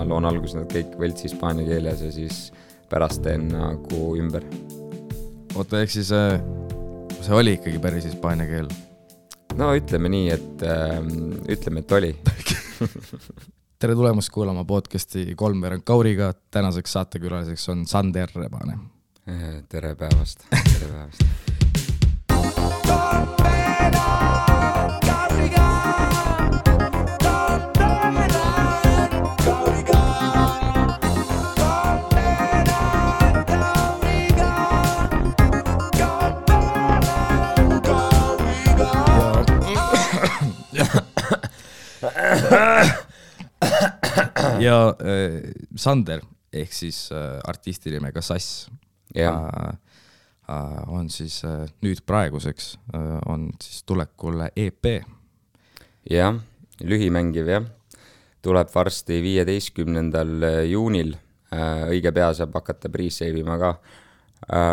ma loon alguses nad kõik võlts hispaania keeles ja siis pärast teen nagu ümber. Oota, ehk siis see oli ikkagi päris hispaania keel? No ütleme nii, et oli. Tere tulemast kuulama podcasti Kolmveerand Kauriga. Tänaseks saatekülaliseks on Sander Rebane. Tere päevast. Tere päevast. Ja Sander ehk siis artisti nimega Sass on siis nüüd praeguseks on siis tulekul EP. Jah, lühimängiv jah. Tuleb varsti 15. juunil. Õige pea saab hakata pre-save'ima ka.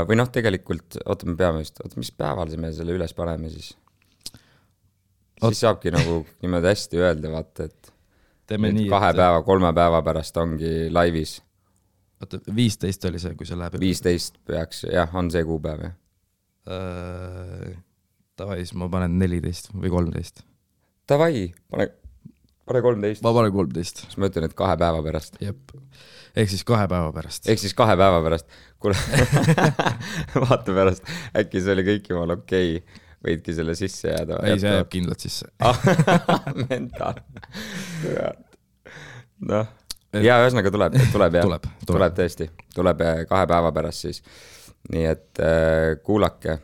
Või noh, tegelikult, me peame just, mis päeval me selle üles paneme siis? Siis saabki nagu niimoodi hästi öelda, vaata, et 2 päeva, 3 päeva pärast ongi laivis. Oota, 15 oli see, kui see läheb? 15 peaks, jah, on see kuupäev, jah. Tavai, siis ma panen 14 või 13. Tavai, pane 13. Ma panen 13. Siis ma ütlen, et 2 päeva pärast. Jep. Ehk siis 2 päeva pärast. Ehk siis 2 päeva pärast. Kuule, vaata pärast, äkki see oli kõik jumal okei. Võidki selle sisse jääda. Ei, see jääb kindlalt sisse. Mental. Noh. Ja ühesõnaga tuleb tõesti. Tuleb 2 päeva pärast siis. Nii et kuulake.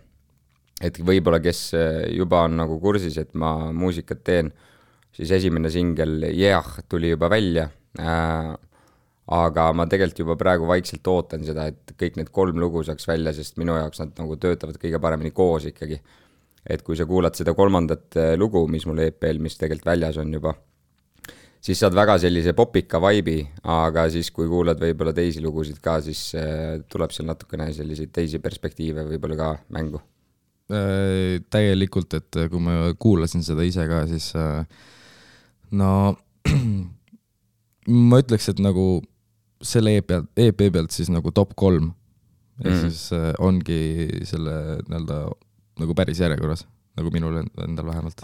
Et võibolla, kes juba on nagu kursis, et ma muusikat teen, siis esimene singel tuli juba välja. Aga ma tegelikult juba praegu vaikselt ootan seda, et kõik need 3 lugu saaks välja, sest minu jaoks nad nagu töötavad kõige paremini koos ikkagi. Et kui sa kuulad seda 3. lugu, mis mul EP-l, mis tegelikult väljas on juba, siis saad väga sellise popika vibe'i, aga siis kui kuulad võibolla teisi lugusid ka, siis tuleb seal natukene selliseid teisi perspektiive võibolla ka mängu. Täielikult, et kui ma kuulasin seda ise ka, siis no ma ütleks, et nagu selle EP pealt siis nagu top 3 ja siis ongi selle nagu päris järjekorras, nagu minul endal vähemalt.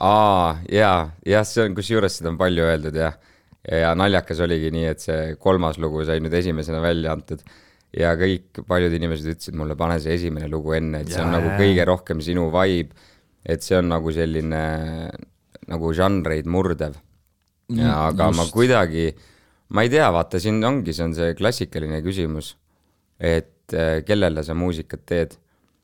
Ja see on, kus juures seda on palju öeldud ja naljakas oligi nii, et see 3. lugu sai nüüd esimesena välja antud ja kõik paljud inimesed ütlesid mulle, pane see esimene lugu enne, et see on nagu kõige rohkem sinu vibe, et see on nagu selline nagu žanreid murdev. Aga ma kuidagi, ma ei tea, vaata, siin ongi, see on see klassikaline küsimus, et kellele sa muusikat teed.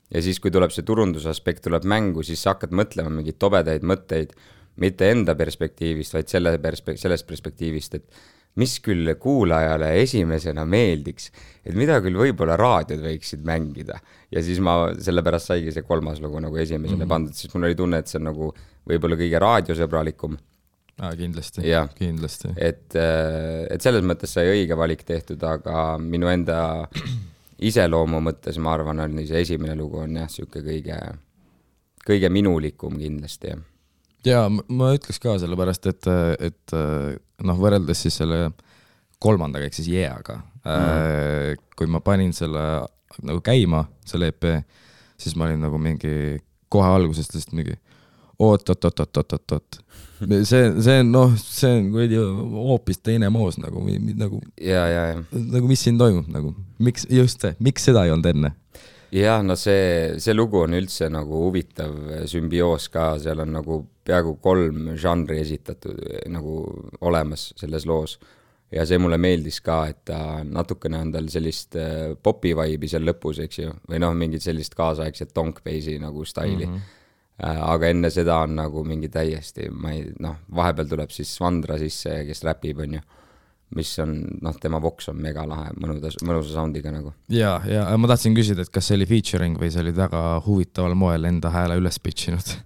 Ja siis, kui tuleb see turundusaspekt, tuleb mängu, siis sa hakkad mõtlema mingid tobedaid mõtteid, mitte enda perspektiivist, vaid sellest perspektiivist, et mis küll kuulajale esimesena meeldiks, et mida küll võib-olla raadiod võiksid mängida. Ja siis ma sellepärast saigi see 3. lugu nagu esimesena pandud, siis mul oli tunne, et see on nagu võib-olla kõige raadiosõbralikum. Kindlasti, ja, kindlasti. Et selles mõttes sai õige valik tehtud, aga minu enda iseloomu mõttes, ma arvan, on see esimene lugu on jah, siuke kõige minulikum kindlasti. Ja ma ütleks ka sellepärast, et noh, võrreldes siis selle 3. ehk siis Jeaga, kui ma panin selle nagu käima, selle EP, siis ma olin nagu mingi kohe algusest lihtsalt mingi oot. See on hoopis teine moos nagu mis siin toimub nagu, miks seda ei olnud enne? Ja, no see lugu on üldse nagu huvitav sümbioos ka, seal on nagu peaaegu 3 žanri esitatud nagu olemas selles loos ja see mulle meeldis ka, et ta natukene on tal sellist popi vibe'i seal lõpus, eks ju, või noh, mingid sellist kaasaegset donk-base'i nagu staili. Aga enne seda on nagu mingi täiesti, vahepeal tuleb siis Svandra sisse, kes räpib, on ju, mis on, tema voks on mega lahe, mõnusa soundiga nagu. Ja ma tahtsin küsida, et kas see oli featuring või see oli väga huvitaval moel enda hääle üles pitchinud?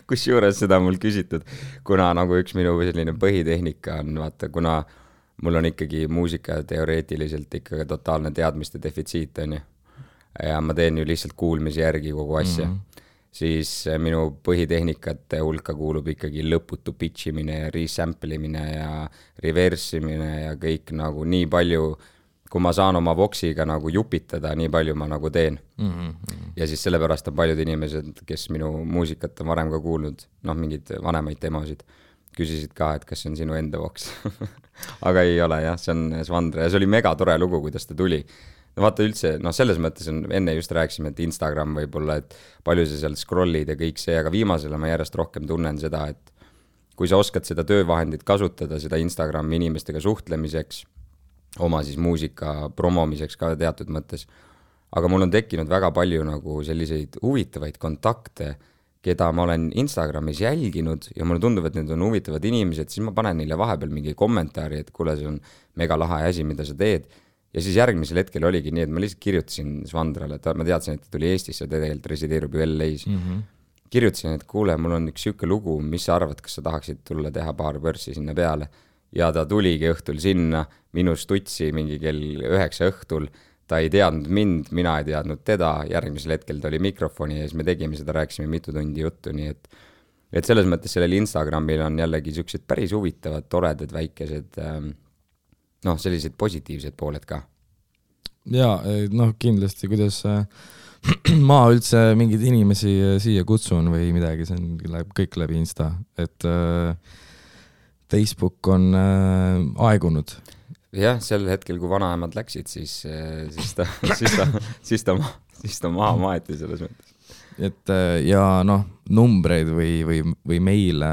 Kus juures seda mul küsitud, kuna nagu üks minu selline põhitehnika on, vaata, kuna mul on ikkagi muusika teoreetiliselt ikkagi totaalne teadmiste defitsiit, on ju. Ja ma teen ju lihtsalt kuulmise järgi kogu asja. siis minu põhitehnikate hulka kuulub ikkagi lõputu pitch imine ja resample imine ja reverse imine ja kõik nagu nii palju, kui ma saan oma voxiga nagu jupitada, nii palju ma nagu teen. Ja siis sellepärast on paljud inimesed, kes minu muusikat on varem ka kuulnud, noh, mingid vanemaid demosid, küsisid ka, et kas see on sinu enda voks. Aga ei ole jah, see on Svandre ja see oli mega tore lugu, kuidas ta tuli. No vaata üldse, noh selles mõttes on, enne just rääkisime, et Instagram võib-olla, et palju sa seal scrollid ja kõik see, aga viimasele ma järjest rohkem tunnen seda, et kui sa oskad seda töövahendit kasutada, seda Instagrami inimestega suhtlemiseks, oma siis muusika promomiseks ka teatud mõttes, aga mul on tekkinud väga palju nagu selliseid huvitavaid kontakte, keda ma olen Instagramis jälginud ja mulle tundub, et need on huvitavad inimesed, siis ma panen neile vahepeal mingi kommentaari, et kuule, see on mega lahe asi, mida sa teed. Ja siis järgmisel hetkel oligi nii, et ma lihtsalt kirjutasin Svandrale, et ma teadsin, et ta tuli Eestisse, ta tegelikult resideerub ju LA-s. Kirjutasin, et kuule, mul on üks siuke lugu, mis sa arvad, kas sa tahaksid tulla teha paar pörssi sinna peale. Ja ta tuligi õhtul sinna, minu stutsi mingi kell 9 õhtul, ta ei teadnud mind, mina ei teadnud teda, järgmisel hetkel ta oli mikrofoni ja siis me tegime seda, rääkisime mitu tundi juttu, nii et selles mõttes sellel Instagramil on jällegi siuksed päris huvitavad, toredad, väikesed, noh, sellised positiivsed pooled ka. Jaa, noh kindlasti, kuidas ma üldse mingeid inimesi siia kutsun või midagi, see on kõik läbi Insta, et Facebook on aegunud. Jah, sel hetkel, kui vanaemad läksid, siis ta maha maeti selles mõttes. Et ja noh, numbreid või meile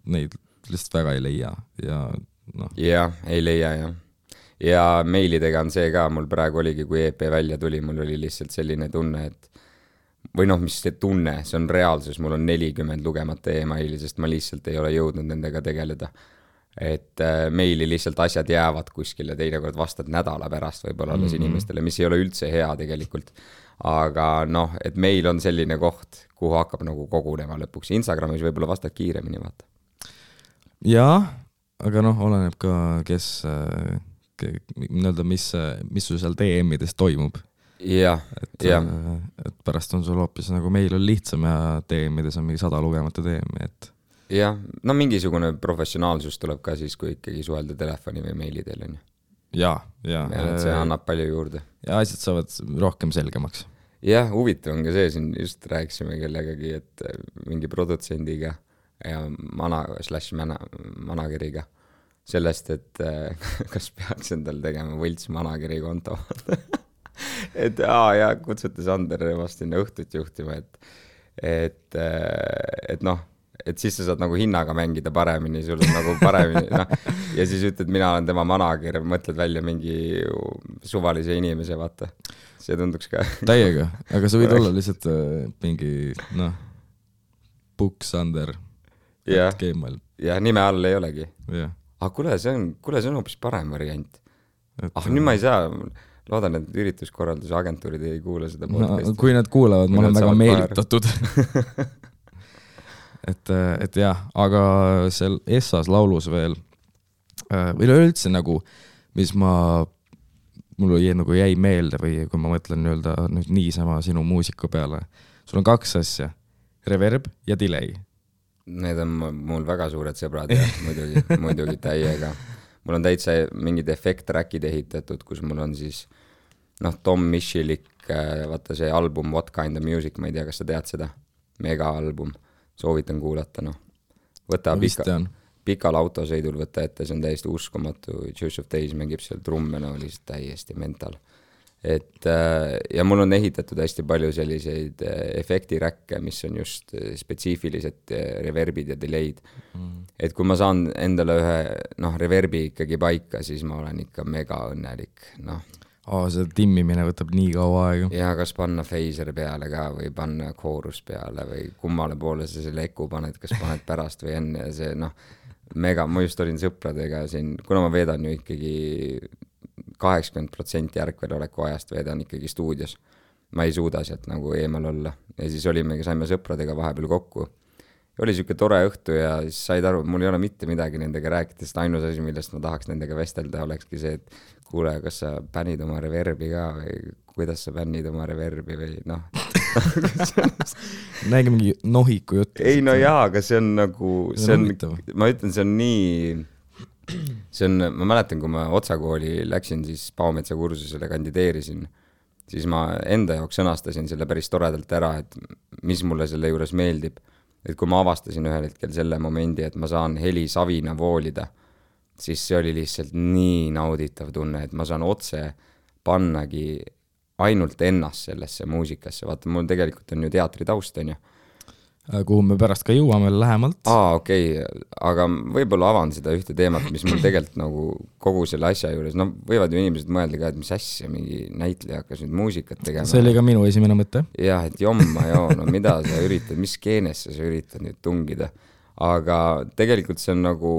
neid lihtsalt väga ei leia ja noh. Jah, ei leia jah. Ja meilidega on see ka, mul praegu oligi, kui EP välja tuli, mul oli lihtsalt selline tunne, et või noh, mis see tunne, see on reaalsus, mul on 40 lugemata e-maili, sest ma lihtsalt ei ole jõudnud nendega tegeleda. Et meili lihtsalt asjad jäävad kuskile, teinekord vastad nädala pärast võib-olla alles inimestele, mis ei ole üldse hea tegelikult. Aga noh, et meil on selline koht, kuhu hakkab nagu kogunema lõpuks. Instagramis võib-olla vastad kiiremini, vaata. Jaa, aga noh, oleneb ka, kes, mis sul seal DM-ides toimub. Jah, jah. Et pärast on sul hoopis nagu meil on lihtsam ja DM-ides on mingi 100 lugemata DM-i, et jah, no mingisugune professionaalsus tuleb ka siis, kui ikkagi suhelda telefoni või meili teel on ju. Jaa. See annab palju juurde. Ja asjad saavad rohkem selgemaks. Jah, huvitav on ka see, siin just rääkisime kellegagi, et mingi produtsendiga ja manageriga sellest, et kas peaks endal tegema võlts manageri konto. Et ja kutsute Sander vast sinna õhtut juhtima, et noh, et siis sa saad nagu hinnaga mängida paremini, sul on nagu paremini, noh, ja siis ütled, mina olen tema manager, mõtled välja mingi suvalise inimese, vaata. See tunduks ka. Täiega, aga sa võid olla lihtsalt mingi, noh, Booksander. Ja nime all ei olegi. Ja. Aga kuule, see on hoopis parem variant. Nüüd ma ei saa, loodan, et ürituskorralduse agentuurid ei kuule seda podcasti. No, kui nad kuulevad, ma olen väga meelitatud. Et jah, aga seal Essas laulus veel või üldse nagu, mis mul jäi meelde või kui ma mõtlen nüüd niisama sinu muusika peale, sul on 2 asja, reverb ja delay. Need on mul väga suured sõbrad ja muidugi täiega. Mul on täitsa mingid efekt-trackid ehitatud, kus mul on siis Tom Michelik, vaata see album What Kind of Music, ma ei tea, kas sa tead seda, mega album. Soovitan kuulata, noh. Võta pikal autosõidul võtta ette, see on täiesti uskumatu. Juice of Days mängib seal trumme, no oli täiesti mental. Et, ja mul on ehitatud hästi palju selliseid efektiräkke, mis on just spetsiifilised reverbid ja delay'd. Et kui ma saan endale ühe reverbi ikkagi paika, siis ma olen ikka mega õnnelik, noh. See timmimine võtab nii kaua aega. Ja kas panna phaser peale ka või panna koorus peale või kummale poole sa selle eku paned, kas paned pärast või enne ja see mega, ma just olin sõpradega siin, kuna ma veedan ju ikkagi 80% järgveloleku ajast veedan ikkagi stuudios. Ma ei suuda sealt nagu eemal olla ja siis saime sõpradega vahepeal kokku. Oli siuke tore õhtu ja siis said aru, mul ei ole mitte midagi nendega rääkida, sest ainus asi, millest ma tahaks nendega vestelda, olekski see, et kuule, kas sa bännid oma reverbi ka või kuidas sa bännid oma reverbi või noh. näegi mingi nohiku jutt. ei no jaa, aga see on nagu, ma ütlen, see on nii, ma mäletan, kui ma Otsakooli läksin, siis Paometsa kursusele kandideerisin, siis ma enda jaoks sõnastasin selle päris toredalt ära, et mis mulle selle juures meeldib. Et kui ma avastasin ühel hetkel selle momendi, et ma saan helisavina voolida, siis see oli lihtsalt nii nauditav tunne, et ma saan otse pannagi ainult ennast sellesse muusikasse. Vaata, mul tegelikult on ju teatritaust, on ju. Kuhu me pärast ka jõuame lähemalt. Okei. Aga võib-olla avan seda ühte teemat, mis mul tegelikult nagu kogu selle asja juures, no võivad ju inimesed mõelda ka, et mis asja, mingi näitleja hakkas nüüd muusikat tegema. See oli ka minu esimene mõte. Jah, et jomma joo, no mida sa üritad, mis skeenesse sa üritad nüüd tungida. Aga tegelikult see on nagu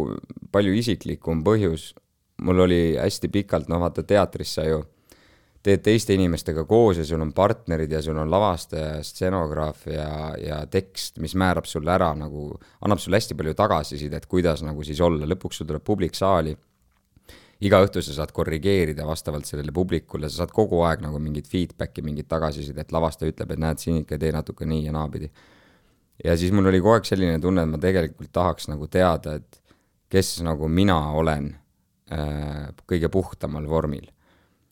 palju isiklikum põhjus. Mul oli hästi pikalt, no vaata teatris sa ju teed teiste inimestega koos ja sul on partnerid ja sul on lavastaja, stseenograaf ja tekst, mis määrab sulle ära, nagu annab sulle hästi palju tagasisidet, kuidas nagu siis olla. Lõpuks sul tuleb publik saali. Iga õhtu sa saad korrigeerida vastavalt sellele publikule, sa saad kogu aeg nagu mingit feedbacki, mingit tagasisidet. Lavastaja ütleb, et näed siin ikka tee natuke nii ja naapidi. Ja siis mul oli kogu aeg selline tunne, et ma tegelikult tahaks nagu teada, et kes nagu mina olen kõige puhtamal vormil.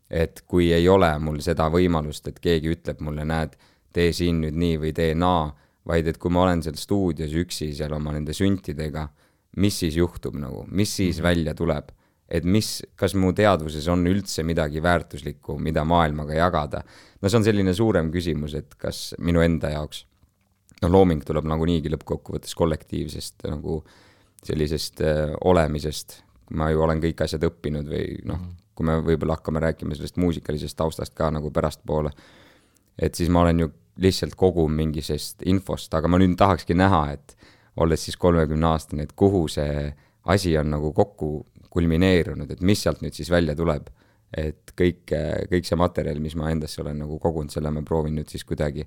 Et kui ei ole mul seda võimalust, et keegi ütleb mulle, näed, tee siin nüüd nii või tee naa, vaid et kui ma olen seal stuudios üksi seal oma nende süntidega, mis siis juhtub nagu, mis siis välja tuleb, et kas mu teadvuses on üldse midagi väärtuslikku, mida maailmaga jagada. No see on selline suurem küsimus, et kas minu enda jaoks, no looming tuleb nagu niigi lõppkokkuvõttes kollektiivsest nagu sellisest olemisest, ma ju olen kõik asjad õppinud või noh, kui me võib-olla hakkame rääkima sellest muusikalisest taustast ka nagu pärast poole, et siis ma olen ju lihtsalt kogu mingisest infost, aga ma nüüd tahakski näha, et olles siis 30-aastane, et kuhu see asi on nagu kokku kulmineerunud, et mis sealt nüüd siis välja tuleb, et kõik see materjal, mis ma endasse olen nagu kogunud, selle ma proovin nüüd siis kuidagi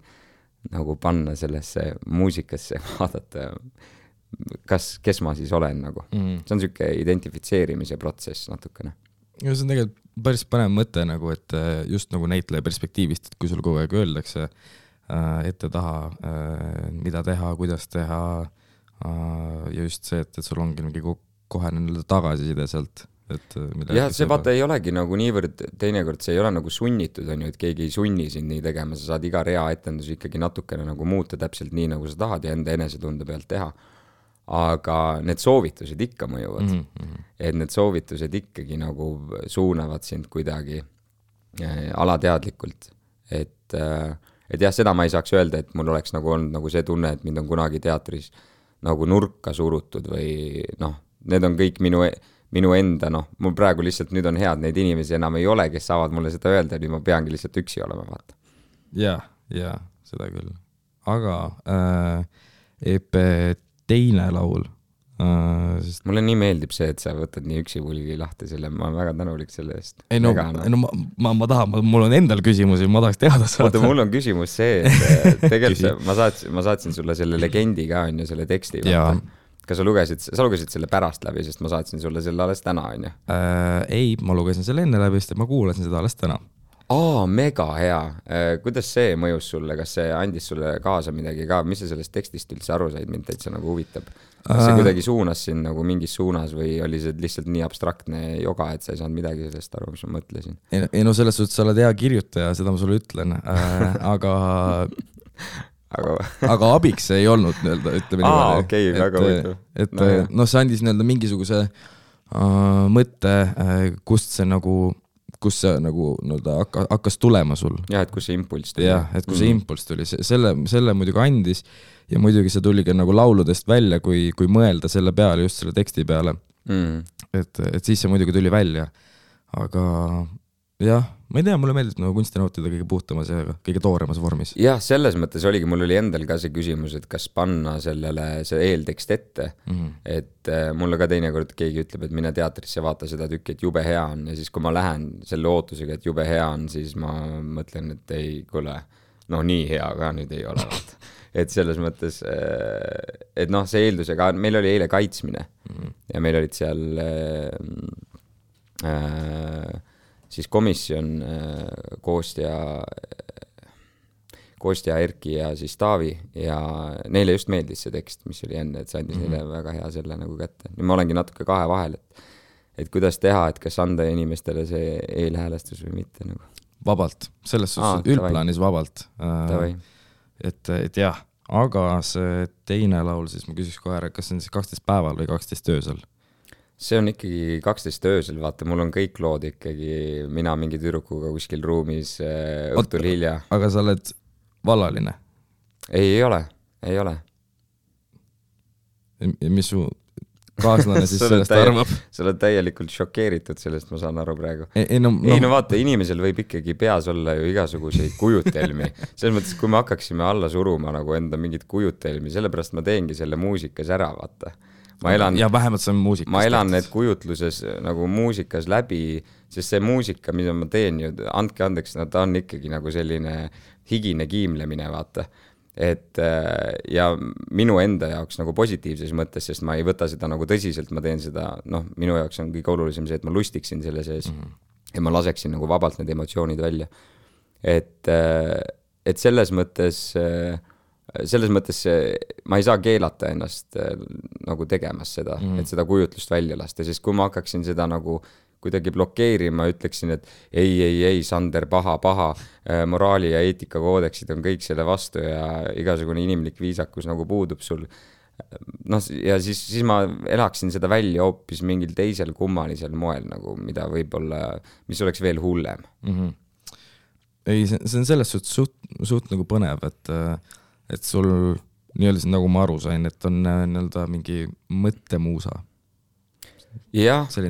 nagu panna sellesse muusikasse, vaadata, kes ma siis olen nagu. See on selline identifitseerimise protsess natukene. Ja see on tegelikult päris põnev mõte nagu, et just nagu näitleja perspektiivist, et kui sul kogu aeg öeldakse ette taha, mida teha, kuidas teha ja just see, et sul ongi mingi kohe tagasiside sealt. Jah, see vaata ei olegi nagu niivõrd, teinekord see ei ole nagu sunnitud, on ju, et keegi ei sunni sind nii tegema, sa saad iga rea etendus ikkagi natukene nagu muuta täpselt nii, nagu sa tahad ja enda enesetunde pealt teha. Aga need soovitused ikka mõjuvad. Et need soovitused ikkagi nagu suunavad sind kuidagi alateadlikult. Et jah, seda ma ei saaks öelda, et mul oleks nagu olnud nagu see tunne, et mind on kunagi teatris nagu nurka surutud või noh, need on kõik minu enda, noh, mul praegu lihtsalt nüüd on head, neid inimesi enam ei ole, kes saavad mulle seda öelda, nüüd ma peangi lihtsalt üksi olema, vaata. Ja, seda küll. Aga EP teine laul. Mulle nii meeldib see, et sa võtad nii üksi pulgi lahti selle, ma olen väga tänulik selle eest. Ei no, ma tahan, mul on endal küsimusi, ma tahaks teada saada. Oota, mul on küsimus see, et tegelikult ma saatsin sulle selle legendi ka, on ju, selle teksti. Kas sa lugesid selle pärast läbi, sest ma saatsin sulle selle alles täna, on ju? Ei, ma lugesin selle enne läbi, sest ma kuulasin seda alles täna. Mega hea. Kuidas see mõjus sulle? Kas see andis sulle kaasa midagi ka? Mis sa sellest tekstist üldse aru said? Mind täitsa nagu huvitab. Kas see kuidagi suunas sind nagu mingis suunas või oli see lihtsalt nii abstraktne joga, et sa ei saanud midagi sellest aru, mis ma mõtlesin? Ei no selles suhtes sa oled hea kirjutaja, seda ma sulle ütlen. Aga abiks see ei olnud, ütleme niimoodi. Okei, väga huvitav. See andis mingisuguse mõtte, kust see nagu hakkas tulema sul. Jah, et kus see impulss tuli. Jah, et kus see impulss tuli. Selle muidugi andis ja muidugi see tuli ka nagu lauludest välja, kui mõelda selle peale, just selle teksti peale. Et siis see muidugi tuli välja. Aga jah, ma ei tea, mulle meeldib nagu kunsti nautida kõige puhtamas ja kõige tooremas vormis. Jah, selles mõttes oligi, mul oli endal ka see küsimus, et kas panna sellele see eeltekst ette, et mulle ka teinekord keegi ütleb, et mine teatrisse vaata seda tükki, et jube hea on ja siis kui ma lähen selle ootusega, et jube hea on, siis ma mõtlen, et ei, kuule, no nii hea ka nüüd ei ole. Et selles mõttes, et noh, see eeldusega, meil oli eile kaitsmine ja meil olid seal siis komisjon Kostja, Erki ja siis Taavi ja neile just meeldis see tekst, mis oli enne, et see andis neile väga hea selle nagu kätte. Nüüd ma olengi natuke kahe vahel, et kuidas teha, et kas anda inimestele see eelhäälestus või mitte nagu. Vabalt, selles suhtes üldplaanis vabalt. Et jah, aga see teine laul, siis ma küsiks kohe ära, kas see on siis 12 päeval või 12 öösel? See on ikkagi 12 öösel, vaata, mul on kõik lood ikkagi, mina mingi tüdrukuga kuskil ruumis õhtul hilja. Aga sa oled vallaline? Ei ole. Ja mis su kaaslane siis sellest arvab? Sa oled täielikult šokeeritud sellest, ma saan aru praegu. No vaata, inimesel võib ikkagi peas olla ju igasuguseid kujutelmi. Selles mõttes, kui me hakkaksime alla suruma nagu enda mingit kujutelmi, sellepärast ma teengi selle muusikas ära, vaata. Ja vähemalt see on muusikas. Ma elan need kujutluses nagu muusikas läbi, sest see muusika, mida ma teen ju, andke andeks, no ta on ikkagi nagu selline higine kiimlemine, vaata. Et ja minu enda jaoks nagu positiivses mõttes, sest ma ei võta seda nagu tõsiselt, ma teen seda, noh, minu jaoks on kõige olulisem see, et ma lustiksin selle sees ja ma laseksin nagu vabalt need emotsioonid välja. Et selles mõttes ma ei saa keelata ennast nagu tegemas seda, et seda kujutlust välja lasta, sest kui ma hakkaksin seda nagu kuidagi blokeerima, ütleksin, et ei, Sander, paha, moraali ja eetika koodeksid on kõik selle vastu ja igasugune inimlik viisakus nagu puudub sul. No, ja siis ma elaksin seda välja hoopis mingil teisel kummalisel moel, nagu, mida võib-olla, mis oleks veel hullem. Ei, see on selles suht nagu põnev, et sul nii-öelda nagu ma aru sain, et on nii-öelda mingi mõttemuusa. Ja see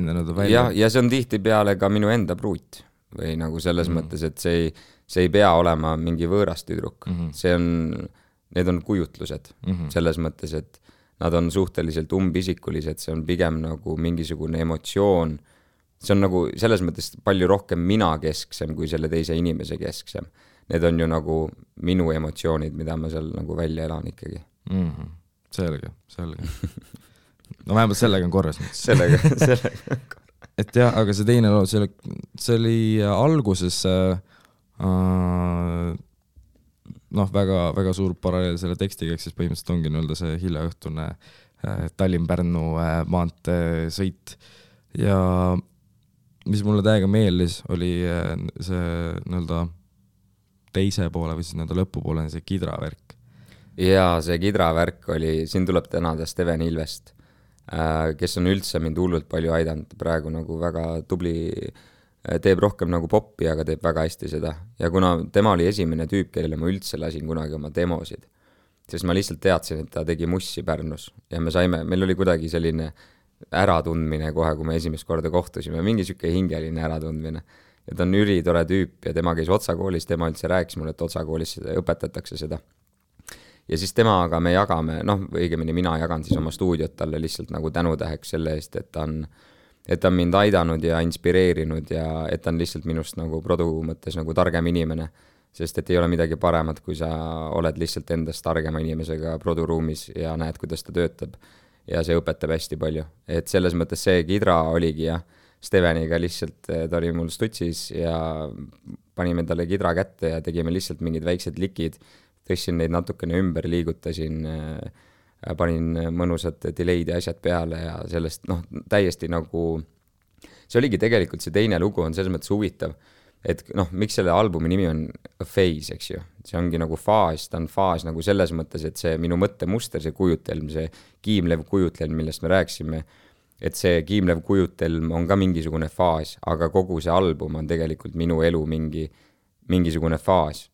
on tihti peale ka minu enda pruut või nagu selles mõttes, et see ei pea olema mingi võõras tüdruk. Need on kujutlused selles mõttes, et nad on suhteliselt umbisikulised, see on pigem nagu mingisugune emotsioon. See on nagu selles mõttes palju rohkem mina kesksem kui selle teise inimese kesksem. Need on ju nagu minu emotsioonid, mida ma seal nagu välja elan ikkagi. Selge. No vähemalt sellega on korras. Sellega on korras. Et jah, aga see teine loo, see oli alguses väga, väga suur paralleel selle tekstiga, siis põhimõtteliselt ongi nii-öelda see hiljaõhtune Tallinn-Pärnu maantee-sõit. Ja mis mulle täiega meeldis, oli see nii-öelda teise poole või siis nii-öelda lõpupoole see kidravärk. Ja see kidravärk oli, siin tuleb tänada Steven Ilvest, kes on üldse mind hullult palju aidanud, praegu nagu väga tubli, teeb rohkem nagu poppi, aga teeb väga hästi seda. Ja kuna tema oli esimene tüüp, kellele ma üldse lasin kunagi oma demosid, sest ma lihtsalt teadsin, et ta tegi mussi Pärnus ja meil oli kuidagi selline äratundmine kohe, kui me esimest korda kohtusime, mingi siuke hingeline äratundmine. Ja ta on ülitore tüüp ja tema käis Otsa koolis, tema üldse rääkis mulle, et Otsa koolis õpetatakse seda. Ja siis temaga me jagame, õigemini mina jagan siis oma stuudiot talle lihtsalt nagu tänutäheks selle eest, et ta on mind aidanud ja inspireerinud ja et ta on lihtsalt minust nagu produ mõttes nagu targem inimene, sest et ei ole midagi paremat, kui sa oled lihtsalt endast targema inimesega produruumis ja näed, kuidas ta töötab ja see õpetab hästi palju. Et selles mõttes see kidra oligi ja Steveniga lihtsalt, ta oli mul stutsis ja panime talle kidra kätte ja tegime lihtsalt mingid väiksed likid, tõssin neid natukene ümber, liigutasin, panin mõnusad delay'd ja asjad peale ja sellest täiesti nagu, see oligi tegelikult see teine lugu on selles mõttes huvitav, et miks selle albumi nimi on A Phase, eks ju, see ongi nagu faas, ta on faas nagu selles mõttes, et see minu mõttemuster, see kujutelm, see kiimlev kujutelm, millest me rääksime, et see kiimlev kujutelm on ka mingisugune faas, aga kogu see album on tegelikult minu elu mingisugune faas.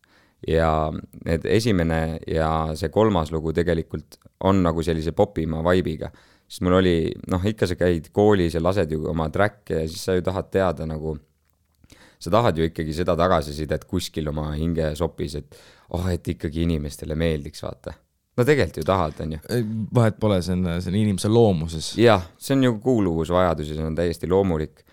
Ja need esimene ja see kolmas lugu tegelikult on nagu sellise popima vaibiga. Sest mul oli, ikka sa käid koolis ja lased ju oma tracke ja siis sa ju tahad teada nagu, sa tahad ju ikkagi seda tagasisidet kuskil oma hinge sopis, et ikkagi inimestele meeldiks, vaata. No tegelikult ju tahad, on ju. Vahet pole, see on inimese loomuses. Jah, see on ju kuuluvusvajadus ja see on täiesti loomulik.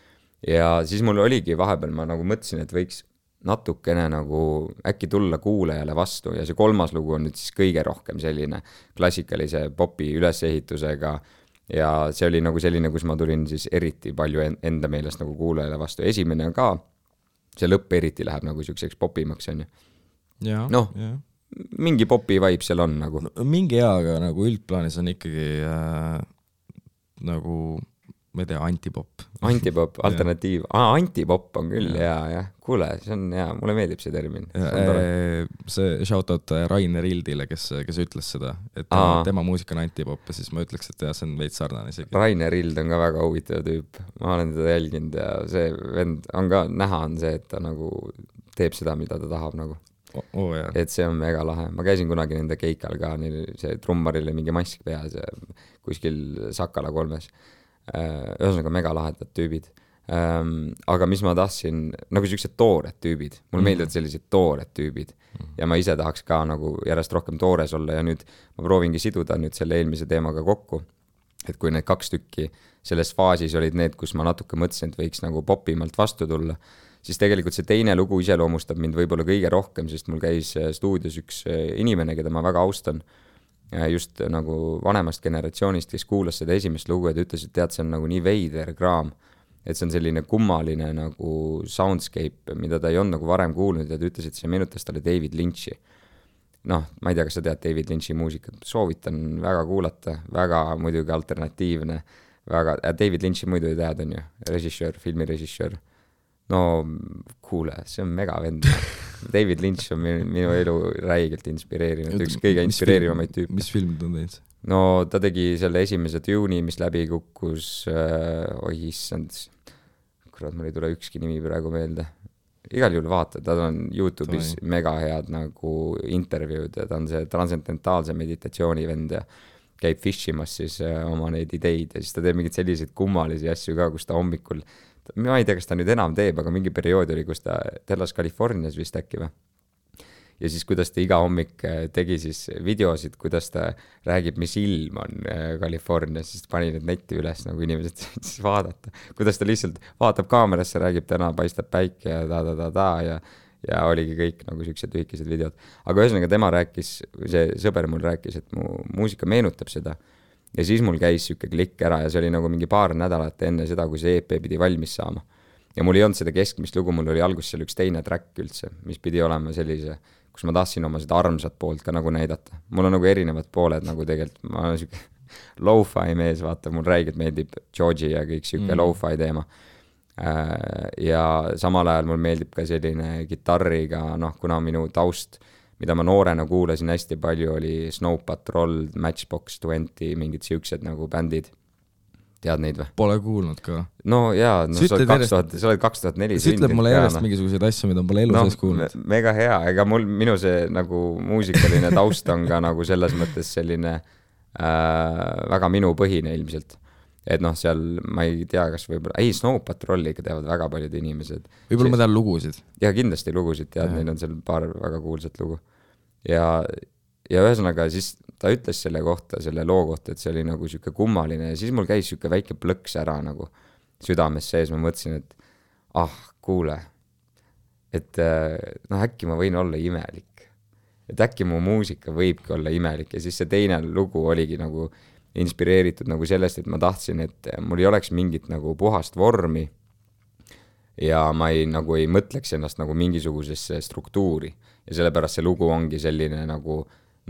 Ja siis mul oligi vahepeal, ma nagu mõtlesin, et võiks natukene nagu äkki tulla kuulajale vastu ja see kolmas lugu on nüüd siis kõige rohkem selline klassikalise popi ülesehitusega ja see oli nagu selline, kus ma tulin siis eriti palju enda meelest nagu kuulajale vastu. Esimene on ka, see lõpp eriti läheb nagu siukseks popimaks, on ju. mingi popi vibe seal on nagu no,. mingi hea, aga nagu üldplaanis on ikkagi nagu ma ei tea, antipop. Antipop, alternatiiv. Antipop on küll hea, jah. Kuule, see on hea, mulle meeldib see termin. See shoutout Rainer Ildile, kes ütles seda, et tema muusika on antipop ja siis ma ütleks, et jah, see on veits sarnane isegi. Rainer Ild on ka väga huvitav tüüp. Ma olen teda jälginud ja see vend on ka näha on see, et ta nagu teeb seda, mida ta tahab nagu. Et see on mega lahe. Ma käisin kunagi nende keikal ka, see trummaril oli mingi mask peas ja kuskil Sakala 3-s. Ühesõnaga mega lahedad tüübid. Aga mis ma tahtsin, nagu sellised toored tüübid. Mulle meeldivad sellised toored tüübid. Ja ma ise tahaks ka nagu järjest rohkem toores olla ja nüüd ma proovingi siduda nüüd selle eelmise teemaga kokku. Et kui need 2 tükki selles faasis olid need, kus ma natuke mõtlesin, et võiks nagu popimalt vastu tulla, siis tegelikult see teine lugu iseloomustab mind võib-olla kõige rohkem, sest mul käis stuudios üks inimene, keda ma väga austan, just nagu vanemast generatsioonist, kes kuulas seda esimest lugu ja ta ütles, et tead, see on nagu nii veider kraam, et see on selline kummaline nagu soundscape, mida ta ei olnud nagu varem kuulnud ja ta ütles, et see meenutas talle David Lynch'i. Noh, ma ei tea, kas sa tead David Lynch'i muusikat, soovitan väga kuulata, väga muidugi alternatiivne, väga, David Lynch'i muidu ei tead, on ju, režissöör, filmirežissöör. No kuule, see on mega vend. David Lynch on minu elu räigelt inspireerinud, üks kõige inspireerivamaid tüüp. Mis filmid on teinud? No ta tegi selle esimese Dune'i, mis läbi kukkus, issand, kurat, mul ei tule ükski nimi praegu meelde. Igal juhul vaata, ta on YouTube'is mega head nagu intervjuud ja ta on see transcendentaalse meditatsiooni vend ja käib fishimas siis oma neid ideid ja siis ta teeb mingid selliseid kummalisi asju ka, kus ta hommikul ma ei tea, kas ta nüüd enam teeb, aga mingi periood oli, kus ta elas Californias vist äkki või. Ja siis, kuidas ta iga hommik tegi siis videosid, kuidas ta räägib, mis ilm on Californias, siis pani need netti üles, nagu inimesed siis vaadata. Kuidas ta lihtsalt vaatab kaamerasse, räägib täna, paistab päike ja ja oligi kõik nagu sellised lühikesed videod. Aga ühesõnaga tema rääkis, see sõber mul rääkis, et mu muusika meenutab seda. Ja siis mul käis siuke klikk ära ja see oli nagu mingi paar nädalat enne seda, kui see EP pidi valmis saama. Ja mul ei olnud seda keskmist lugu, mul oli alguses seal üks teine track üldse, mis pidi olema sellise, kus ma tahtsin oma seda armsat poolt ka nagu näidata. Mul on nagu erinevad pooled nagu tegelikult, ma olen siuke lo-fi mees, vaata, mul räigelt meeldib Georgie ja kõik siuke lo-fi teema. Ja samal ajal mul meeldib ka selline gitarriga, noh, kuna minu taust mida ma noorena kuulasin hästi palju, oli Snow Patrol, Matchbox 20, mingid siuksed nagu bändid. Tead neid või? Pole kuulnud ka. No jaa, no sa oled 2004. See ütleb mulle järjest mingisuguseid asju, mida pole elu sees kuulnud. Mega hea, ega minu see nagu muusikaline taust on ka nagu selles mõttes selline väga minu põhine ilmselt. Et noh, seal ma ei tea, kas võib-olla, Snow Patrolli ikka teavad väga paljud inimesed. Võib-olla ma tean lugusid. Ja kindlasti lugusid, tead, neil on seal paar väga kuulsat lugu. Ja ühesõnaga siis ta ütles selle kohta, selle loo kohta, et see oli nagu siuke kummaline ja siis mul käis siuke väike plõks ära nagu südames sees, ma mõtlesin, et kuule, et noh, äkki ma võin olla imelik. Et äkki mu muusika võibki olla imelik ja siis see teine lugu oligi nagu inspireeritud nagu sellest, et ma tahtsin, et mul ei oleks mingit nagu puhast vormi ja ma ei mõtleks ennast nagu mingisugusesse struktuuri ja sellepärast see lugu ongi selline nagu,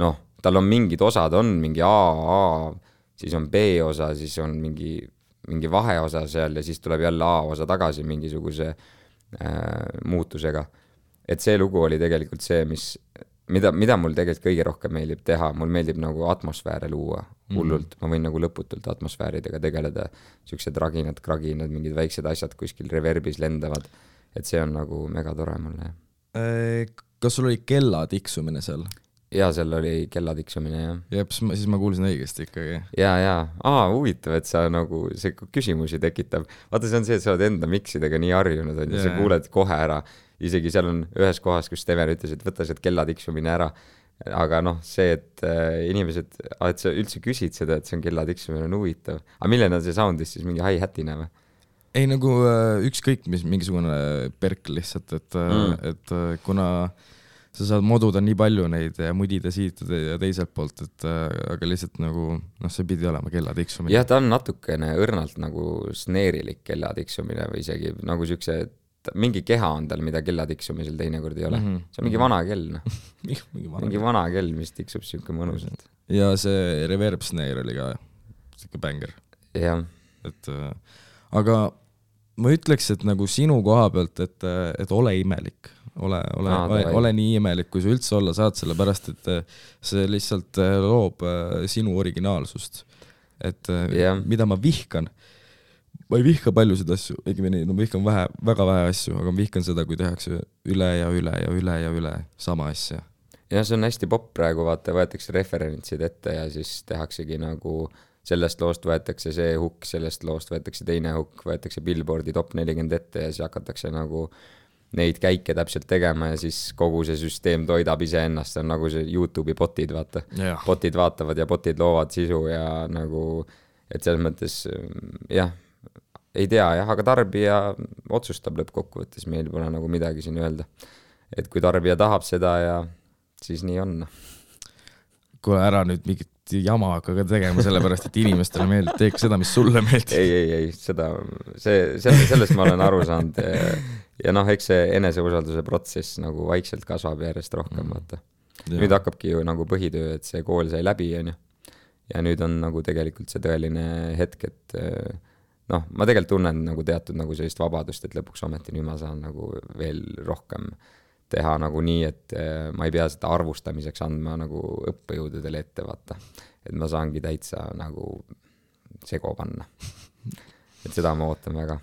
noh, tal on mingid osad, on mingi A, siis on B osa, siis on mingi vaheosa seal ja siis tuleb jälle A osa tagasi mingisuguse muutusega. Et see lugu oli tegelikult see, mida mul tegelikult kõige rohkem meeldib teha, mul meeldib nagu atmosfääre luua hullult, ma võin nagu lõputult atmosfääridega tegeleda, siuksed raginad, kraginad, mingid väiksed asjad kuskil reverbis lendavad, et see on nagu mega tore mulle. Kas sul oli kella tiksumine seal? Jaa, seal oli kella tiksumine, jah. Jep, siis ma kuulsin õigesti ikkagi. Jaa, huvitav, et sa nagu see küsimusi tekitab. Vaata, see on see, et sa oled enda miksidega nii harjunud, on ja sa kuuled kohe ära. Isegi seal on ühes kohas, kus Steven ütles, et võta see kella tiksumine ära. Aga noh, see, et inimesed, et sa üldse küsid seda, et see on kella tiksumine, on huvitav. Aga milline on see soundis siis mingi hi-hatina või? Ei, nagu ükskõik, mis mingisugune perk lihtsalt, et kuna sa saad moduda nii palju neid ja mudida siit ja teiselt poolt, et aga lihtsalt nagu, noh, see pidi olema kella tiksumine. Jah, ta on natukene õrnalt nagu sneerilik kella tiksumine või isegi nagu siukse mingi keha on tal, mida kella tiksumisel teinekord ei ole. See on mingi vana kell, noh. mingi vana kell, mis tiksub siuke mõnusalt. Ja see reverb snare oli ka siuke bänger. Jah. Aga ma ütleks, et nagu sinu koha pealt, et ole imelik. Ole nii imelik, kui sa üldse olla saad, sellepärast, et see lihtsalt loob sinu originaalsust. Et mida ma vihkan, ma ei vihka paljusid asju, ma vihkan väga vähe asju, aga ma vihkan seda, kui tehakse üle ja üle ja üle ja üle sama asja. Ja see on hästi popp praegu, vaata, võetakse referentsid ette ja siis tehaksegi nagu sellest loost võetakse see hukk, sellest loost võetakse teine hukk, võetakse Billboardi top 40 ette ja siis hakatakse nagu neid käike täpselt tegema ja siis kogu see süsteem toidab ise ennast, see on nagu see YouTube'i botid, vaata. Botid vaatavad ja botid loovad sisu ja nagu, et selles mõttes, jah, ei tea, jah, aga tarbija otsustab lõppkokkuvõttes, meil pole nagu midagi siin öelda. Et kui tarbija tahab seda ja siis nii on. Kui ära nüüd mingit jama hakka tegema sellepärast, et inimestele meeldib, teeks seda, mis sulle meeldib. Ei, sellest ma olen aru saanud ja noh, eks see eneseusalduse protsess nagu vaikselt kasvab järjest rohkem, vaata. Nüüd hakkabki ju nagu põhitöö, et see kool sai läbi, ja nüüd on nagu tegelikult see tõeline hetk, et noh, ma tegelikult tunnen nagu teatud nagu sellist vabadust, et lõpuks ometi nüüd ma saan nagu veel rohkem teha nagu nii, et ma ei pea seda arvustamiseks andma nagu õppejõududele ette, vaata. Et ma saangi täitsa nagu sego panna. Et seda ma ootan väga.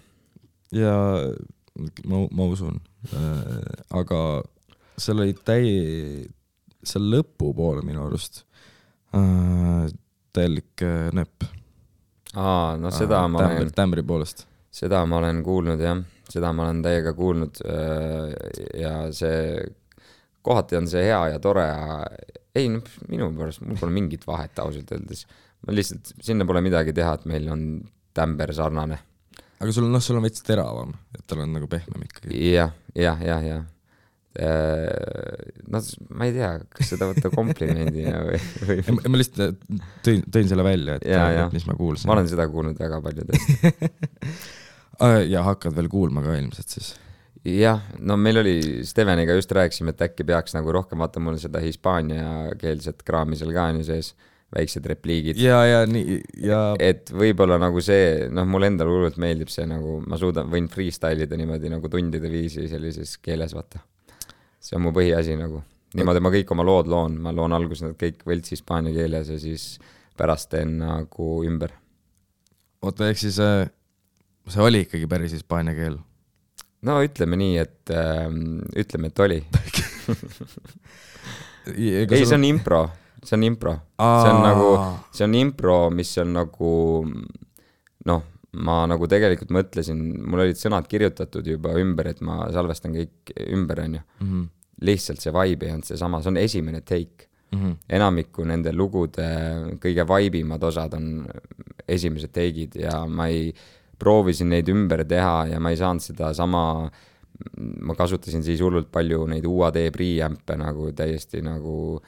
Ja ma usun. Aga seal oli seal lõpu poole minu arust täielik nöpp. No seda ma olen... Tämbri poolest. Seda ma olen kuulnud, jah. Seda ma olen täiega kuulnud ja see kohati on see hea ja tore. Ei, minu pärast, mul pole mingit vahet ausalt öeldes. Ma lihtsalt, sinna pole midagi teha, et meil on tämber sarnane. Aga sul on veits teravam, et tal on nagu pehmem ikkagi. Jah. No, ma ei tea, kas seda võtta komplimendina või... Ma lihtsalt tõin selle välja, et mis ma kuulsin. Ma olen seda kuulnud väga paljudest. Ja hakkad veel kuulma ka ilmselt siis? Jah, no meil oli Steveniga just rääkisime, et äkki peaks nagu rohkem vaata mul seda hispaania keelset kraami seal ka on ju sees, väiksed repliigid. Ja. Et võib-olla nagu see, noh, mul endal hullult meeldib see nagu, ma võin freestylida niimoodi nagu tundide viisi sellises keeles, vaata. See on mu põhiasi nagu. Niimoodi ma kõik oma lood loon, ma loon alguses nad kõik võlts hispaania keeles ja siis pärast teen nagu ümber. Oota, ehk siis see oli ikkagi päris hispaania keel? No ütleme nii, et oli. Ei, see on impro. See on impro. See on impro, mis on nagu, noh, ma nagu tegelikult mõtlesin, mul olid sõnad kirjutatud juba ümber, et ma salvestan kõik ümber, on ju. Lihtsalt see vibe ei olnud see sama, see on esimene take. Enamiku nende lugude kõige vaibimad osad on esimesed take'id ja ma proovisin neid ümber teha ja ma ei saanud seda sama, ma kasutasin siis hullult palju neid UAD preamp'e nagu täiesti nagu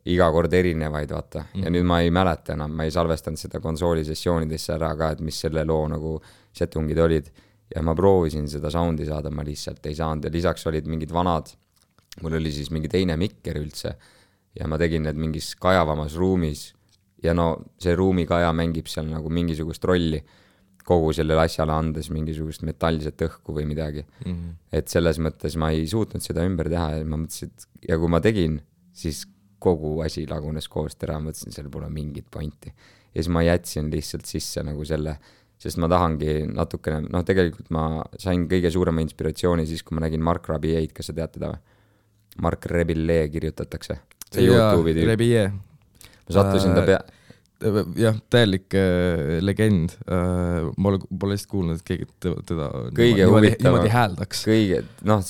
iga kord erinevaid, vaata. Ja nüüd ma ei mäleta enam, ma ei salvestanud seda konsooli sessioonidesse ära ka, et mis selle loo nagu setungid olid. Ja ma proovisin seda soundi saada, ma lihtsalt ei saanud ja lisaks olid mingid vanad, mul oli siis mingi teine mikker üldse ja ma tegin need mingis kajavamas ruumis ja no see ruumikaja mängib seal nagu mingisugust rolli kogu sellele asjale andes mingisugust metallset õhku või midagi. Et selles mõttes ma ei suutnud seda ümber teha ja ma mõtlesin, et ja kui ma tegin, siis kogu asi lagunes koost ära, mõtlesin, seal pole mingit pointi. Ja siis ma jätsin lihtsalt sisse nagu selle, sest ma tahangi natukene, noh tegelikult ma sain kõige suurema inspiratsiooni siis, kui ma nägin Mark Rabiet, kas sa tead teda või? Mark Rebillet kirjutatakse. See YouTube'i tüüp. Rebillet. Ma sattusin ta jah, täielik legend. Ma pole lihtsalt kuulnud, et keegi teda niimoodi hääldaks. Noh,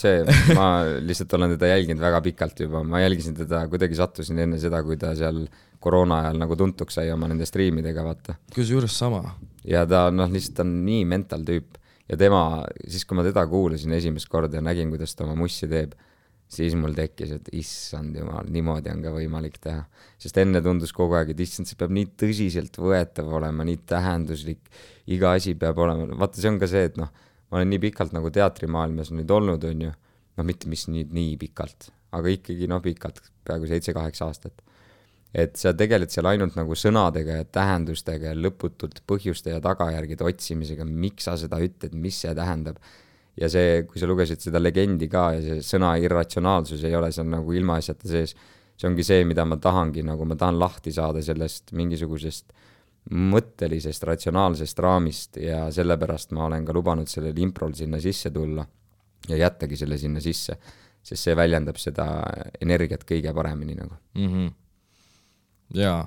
ma lihtsalt olen teda jälginud väga pikalt juba. Ma jälgisin teda, kuidagi sattusin enne seda, kui ta seal koroona ajal nagu tuntuks sai oma nende striimidega, vaata. Kus juures sama? Ja ta lihtsalt on nii mental tüüp. Ja tema, siis kui ma teda kuulasin esimest korda ja nägin, kuidas ta oma mussi teeb, siis mul tekkis, et issand jumal, niimoodi on ka võimalik teha. Sest enne tundus kogu aeg, et issand, see peab nii tõsiselt võetav olema, nii tähenduslik, iga asi peab olema. Vaata, see on ka see, et noh, ma olen nii pikalt nagu teatrimaailmas nüüd olnud, on ju, no mitte mis nii pikalt, aga ikkagi pikalt, peaaegu 7-8 aastat. Et sa tegeled seal ainult nagu sõnadega ja tähendustega ja lõputult põhjuste ja tagajärgide otsimisega, miks sa seda ütled, mis see tähendab. Ja see, kui sa lugesid seda legendi ka ja see sõna irratsionaalsus ei ole seal nagu ilmaasjata sees, see ongi see, mida ma tahangi, nagu ma tahan lahti saada sellest mingisugusest mõttelisest, ratsionaalsest raamist ja sellepärast ma olen ka lubanud sellel improl sinna sisse tulla ja jättagi selle sinna sisse, sest see väljendab seda energiat kõige paremini nagu. Jaa,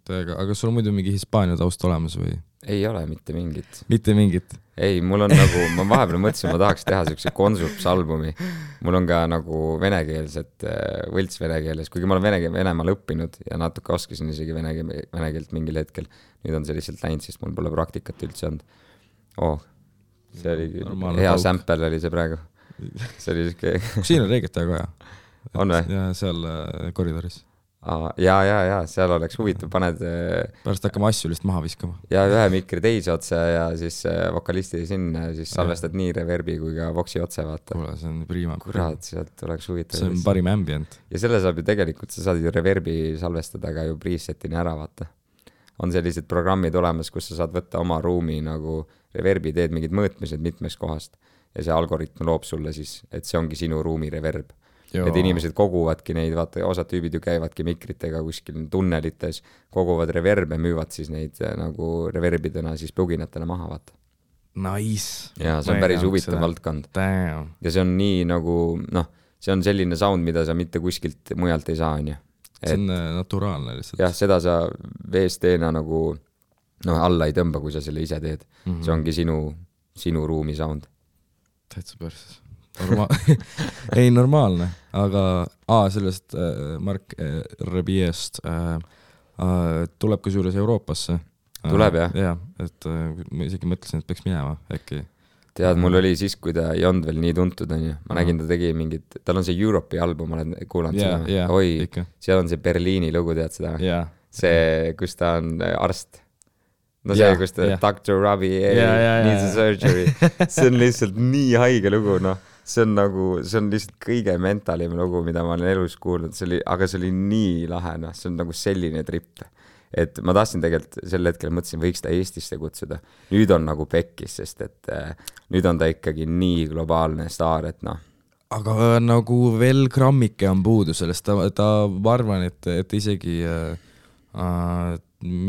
täiega, aga sul on muidu mingi Hispaania taust olemas või? Ei ole mitte mingit. Mitte mingit? Ei, mul on nagu, ma vahepeal mõtlesin, ma tahaks teha sellise Konsups-albumi. Mul on ka nagu venekeelset, võlts venekeeles, kuigi ma olen Venemaal õppinud ja natuke oskasin isegi venekeelt mingil hetkel. Nüüd on see lihtsalt läinud, sest mul pole praktikat üldse olnud. See oli hea sample oli see praegu. See oli siuke... Siin on reeget väga hea. On või? Ja seal koridoris. Ja, seal oleks huvitav, paned... Pärast hakkame asju lihtsalt maha viskama. Ja ühe mikri teise otsa ja siis vokalisti sinna, siis salvestad nii reverbi kui ka voksi otse, vaata. Kuule, see on prima. Kurat, sealt oleks huvitav. See on parim ambient. Ja selle saab ju tegelikult, sa saad ju reverbi salvestada ka ju presetini ära, vaata. On sellised programmid olemas, kus sa saad võtta oma ruumi nagu reverbi, teed mingid mõõtmised mitmest kohast ja see algoritm loob sulle siis, et see ongi sinu ruumi reverb. Et inimesed koguvadki neid, vaata, osad tüübid ju käivadki mikritega kuskil tunnelites, koguvad reverbe, müüvad siis neid nagu reverbidena siis pluginatena maha, vaata. Nice. Ja see on päris huvitav valdkond. Damn. Ja see on nii nagu, see on selline sound, mida sa mitte kuskilt mujalt ei saa, on ju. See on naturaalne lihtsalt. Jah, seda sa VST-na nagu alla ei tõmba, kui sa selle ise teed. See ongi sinu ruumi sound. Täitsa perses. Ei, normaalne, aga sellest Mark Rebiest tuleb ka suures Euroopasse. Tuleb, jah? Jah, et ma isegi mõtlesin, et peaks minema äkki. Tead, mul oli siis, kui ta ei olnud veel nii tuntud, on ju. Ma nägin, ta tegi mingid, tal on see Europe'i album, olen kuulanud seda. Oi, seal on see Berliini lugu, tead seda? See, kus ta on arst. No see, kus ta Dr. Robbie needs a surgery. See on lihtsalt nii haige lugu, See on lihtsalt kõige mentalim lugu, mida ma olen elus kuulnud, aga see oli nii lahe, see on nagu selline trip. Et ma tahtsin tegelikult sel hetkel mõtlesin, võiks ta Eestisse kutsuda. Nüüd on nagu pekkis, sest et nüüd on ta ikkagi nii globaalne staar, et Aga nagu veel grammike on puudu sellest, ta ma arvan, et isegi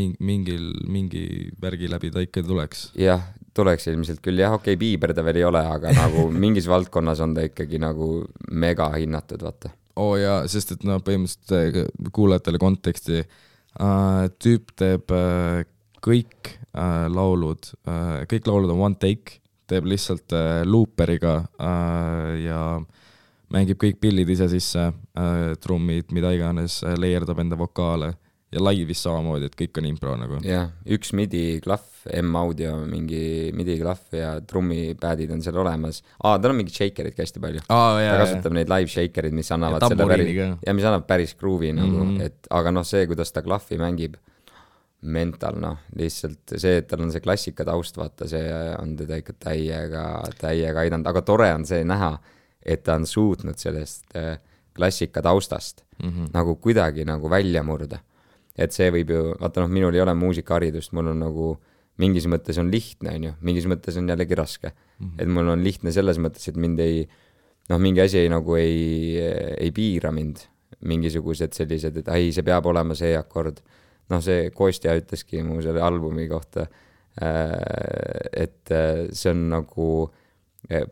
mingi värgi läbi ta ikka tuleks. Jah, tuleks ilmselt küll. Jah, okei, Bieber ta veel ei ole, aga nagu mingis valdkonnas on ta ikkagi nagu mega hinnatud, vaata. Jaa, sest et põhimõtteliselt kuulajatele konteksti tüüp teeb kõik laulud on one take, teeb lihtsalt looperiga ja mängib kõik pillid ise sisse, trummid, mida iganes, leierdab enda vokaale ja laivis samamoodi, et kõik on impro nagu. Jah, üks MIDI-klaff, M-audio, mingi MIDI-klaff ja trummipädid on seal olemas. Tal on mingi shakerid hästi palju. Ta kasutab neid live shakerid, mis annavad mis annab päris groovi nagu, aga see, kuidas ta klaffi mängib, mental, lihtsalt see, et tal on see klassika taust, vaata, see on teda ikka täiega aidanud, aga tore on see näha, et ta on suutnud sellest klassika taustast nagu kuidagi nagu välja murda. Et see võib ju, vaata minul ei ole muusikaharidust, mul on nagu mingis mõttes on lihtne, on ju, mingis mõttes on jällegi raske. Et mul on lihtne selles mõttes, et mind mingi asi nagu ei piira mind, mingisugused sellised, et see peab olema see akord. See Kostja ütleski mu selle albumi kohta, et see on nagu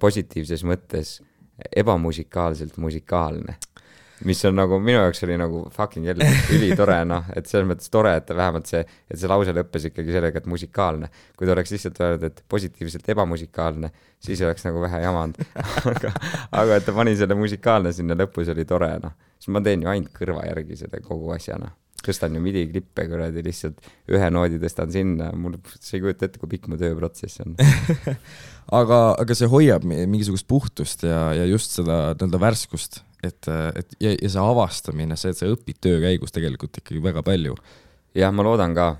positiivses mõttes ebamusikaalselt musikaalne. Mis on nagu, minu jaoks oli nagu fucking jälle üli tore, et selles mõttes tore, et vähemalt see lause lõppes ikkagi sellega, et musikaalne. Kui ta oleks lihtsalt öelnud, et positiivselt ebamusikaalne, siis oleks nagu vähe jamanud. aga et ta pani selle musikaalne sinna lõpus oli tore, Siis ma teen ju ainult kõrva järgi seda kogu asjana. Tõstan ju MIDI-klippe kuradi lihtsalt ühe noodi tõstan sinna, mul see ei kujuta ette, kui pikk mu tööprotsess on. aga see hoiab mingisugust puhtust ja just seda värskust, et see avastamine, see, et sa õpid töö käigus tegelikult ikkagi väga palju. Jah, ma loodan ka,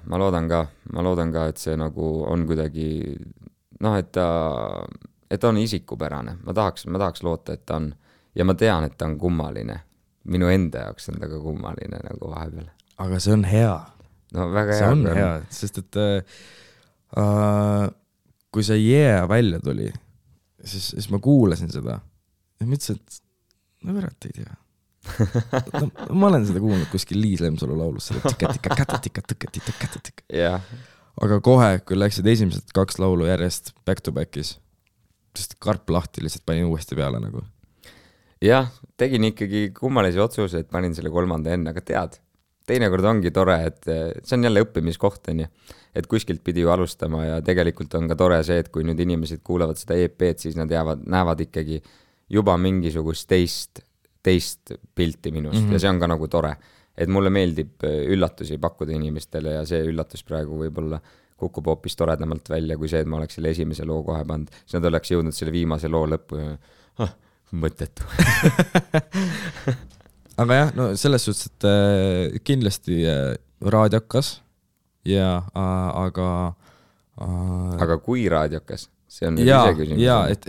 et see nagu on kuidagi, et on isikupärane, ma tahaks loota, et ta on ja ma tean, et ta on kummaline. Minu enda jaoks on ta ka kummaline nagu vahepeal. aga see on hea. No väga see hea. on hea, sest et kui see Yeah välja tuli, siis ma kuulasin seda ja mõtlesin, et no verat ei tea. No, ma olen seda kuulnud kuskil Liis Lemsalu laulus, jah. aga kohe, kui läksid esimesed 2 laulu järjest back to back'is, sest karp lahti lihtsalt panin uuesti peale nagu. Jah, tegin ikkagi kummalisi otsuseid, panin selle 3. enne, aga tead, teinekord ongi tore, et see on jälle õppimiskoht, on ju, et kuskilt pidi ju alustama ja tegelikult on ka tore see, et kui nüüd inimesed kuulavad seda EP-d, siis nad näevad ikkagi juba mingisugust teist pilti minust ja see on ka nagu tore, et mulle meeldib üllatusi pakkuda inimestele ja see üllatus praegu võib-olla kukub hoopis toredamalt välja kui see, et ma oleks selle esimese loo kohe pannud, siis nad oleks jõudnud selle viimase loo lõppu ja mõttetu. aga jah, no selles suhtes, et kindlasti raadiokas ja aga kui raadiokas? See on ja, ise küsimus. Ja, et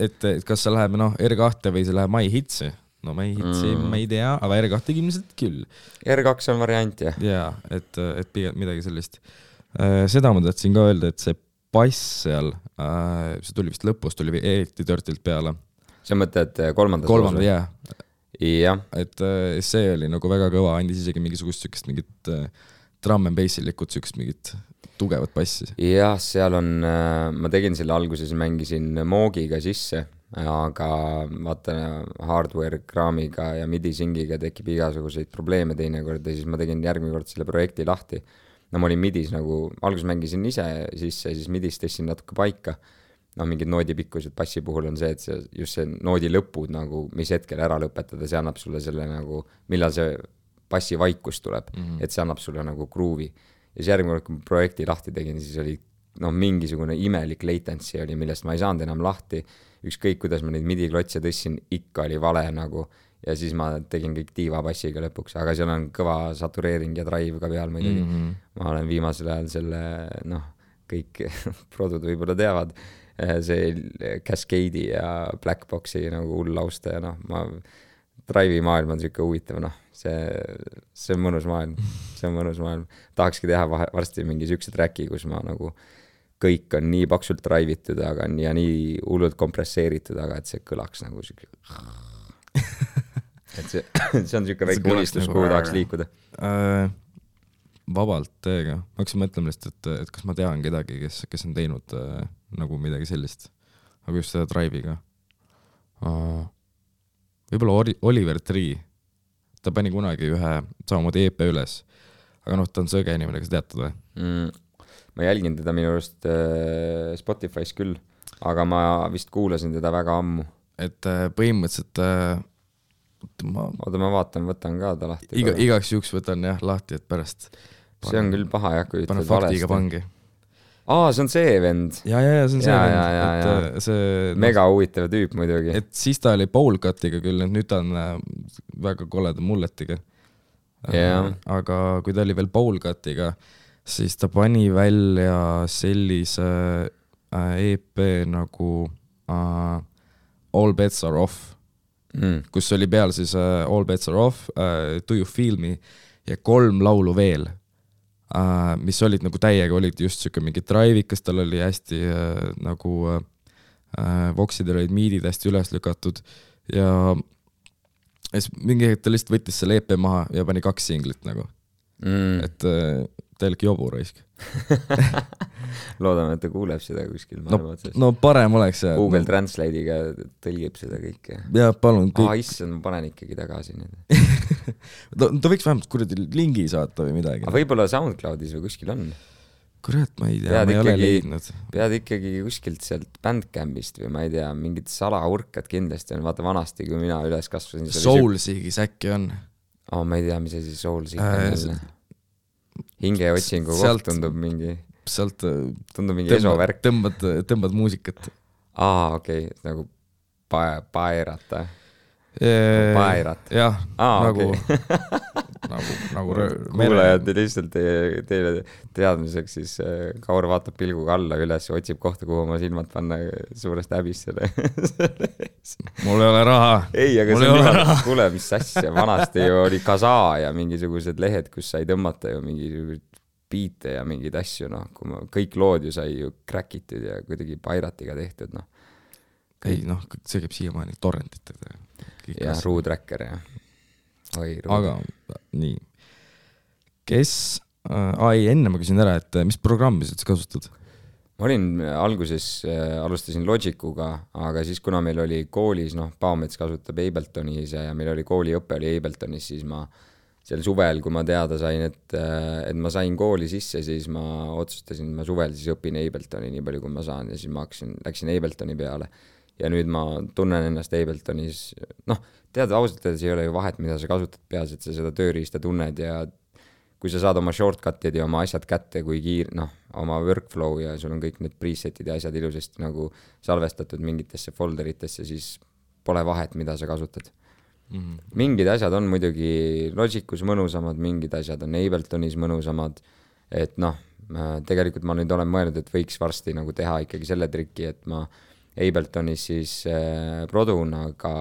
kas see läheb R2 või see läheb My Hitsi? No My Hitsi ma ei tea, aga R2 ilmselt küll. R2 on variant, jah. Ja, et pigem midagi sellist. Seda ma tahtsin ka öelda, et see bass seal, see tuli vist lõpus, tuli eriti törtilt peale. See mõtled kolmandas? Jah. Jah. Et see oli nagu väga kõva, andis isegi mingisugust sükest mingit drum and bassilikut, sükest mingit tugevat bassi. Jah, seal on, ma tegin selle alguses, mängisin Moogiga sisse, aga vaata hardware kraamiga ja midi-singiga tekib igasuguseid probleeme teinekord ja siis ma tegin järgmine kord selle projekti lahti. No ma olin midis nagu, alguses mängisin ise sisse ja siis midis tõstin natuke paika. No mingid noodipikkused bassi puhul on see, et just see noodi lõpud nagu, mis hetkel ära lõpetada, see annab sulle selle nagu, millal see bassi vaikus tuleb, et see annab sulle nagu gruuvi. Ja siis järgmine kord, kui ma projekti lahti tegin, siis oli mingisugune imelik latency oli, millest ma ei saanud enam lahti. Ükskõik, kuidas ma neid midi-klotse tõssin, ikka oli vale nagu ja siis ma tegin kõik diiva bassiga lõpuks, aga seal on kõva satureering ja drive ka peal muidugi. Ma olen viimasel ajal selle, kõik produd võib-olla teavad, see Cascade'i ja Blackboxi nagu hull lausta ja ma drive'i maailm on siuke huvitav, see on mõnus maailm. Tahakski teha varsti mingi siukse tracki, kus ma nagu kõik on nii paksult drive'itud ja nii hullult kompresseeritud, aga et see kõlaks nagu siuke et see on siuke väike unistus, kuhu tahaks liikuda. Vabalt teega. Ma hakkasin mõtlema lihtsalt, et kas ma tean kedagi, kes on teinud nagu midagi sellist, aga just seda drive'iga. Võib-olla Oliver Tree, ta pani kunagi ühe samamoodi EP üles, aga ta on sõge inimene, kas teatad või? Ma jälgin teda minu arust Spotify's küll, aga ma vist kuulasin teda väga ammu. Et põhimõtteliselt oota, ma võtan ka ta lahti. Igaks juhuks võtan jah lahti, et pärast see on küll paha, kui ütled faktiga pangi. See on see vend. Ja, see on see vend. See, mega huvitav tüüp muidugi. Et siis ta oli Bowlcutiga küll, nüüd ta on väga koleda mulletiga. Aga kui ta oli veel Bowlcutiga, siis ta pani välja sellise EP nagu All Bets Are Off, kus oli peal siis All Bets Are Off, Do You Feel Me ja 3 laulu veel, mis olid nagu täiega, olid just siuke mingi drive'ikas, tal oli hästi nagu voksidel olid miidid hästi üles lükatud ja mingi hetk ta lihtsalt võttis selle EP maha ja pani 2 singlit nagu. Et täielik jobu raisk. Loodame, et ta kuuleb seda kuskil. No parem oleks. Google Translate'iga tõlgib seda kõike. Ja palun. Issand, ma panen ikkagi tagasi nüüd. Ta võiks vähemalt kuradi lingi saata või midagi. Aga võib-olla SoundCloudis või kuskil on. Kurat, ma ei tea, ma ei ole leidnud. Pead ikkagi kuskilt sealt Bandcampist või ma ei tea, mingid salaurkad kindlasti on. Vaata vanasti, kui mina üles kasvasin. Soulsigis äkki on. Ma ei tea, mis see Soulsig on. Hingeotsingu koht tundub mingi. Sealt tundub mingi esovärk. Tõmbad muusikat. Okei, nagu paerat. Paerat. Jah, nagu nagu kuulajad lihtsalt teile teadmiseks, siis Kaur vaatab pilguga alla üles, otsib kohta, kuhu oma silmad panna suurest häbist selle. Mul ei ole raha. Ei, aga see on niimoodi, kuule, mis asja, vanasti ju oli Kasa ja mingisugused lehed, kus sai tõmmata ju mingisugused biite ja mingeid asju, noh, kõik lood ju sai ju crackitud ja kuidagi Piratiga tehtud, noh. Ei, noh, see käib siiamaani torrentid. Ja Ruutracker ja aga nii, kes enne ma küsin ära, et mis programmi sa kasutad? Ma olin alguses, alustasin Logicuga, aga siis kuna meil oli koolis, noh, Paomets kasutab Abletonis ja meil oli kooliõpe oli Abletonis, siis ma sel suvel, kui ma teada sain, et ma sain kooli sisse, siis ma otsustasin, ma suvel siis õpin Abletoni nii palju, kui ma saan ja siis ma läksin Abletoni peale. Ja nüüd ma tunnen ennast Abletonis, noh, tead, ausalt öeldes ei ole ju vahet, mida sa kasutad peas, et sa seda tööriista tunned ja kui sa saad oma shortcut'id ja oma asjad kätte, kui noh, oma workflow ja sul on kõik need preset'id ja asjad ilusasti nagu salvestatud mingitesse folderitesse, siis pole vahet, mida sa kasutad. Mingid asjad on muidugi Logicus mõnusamad, mingid asjad on Abletonis mõnusamad, et noh, tegelikult ma nüüd olen mõelnud, et võiks varsti nagu teha ikkagi selle triki, et ma Abletonis siis produun, aga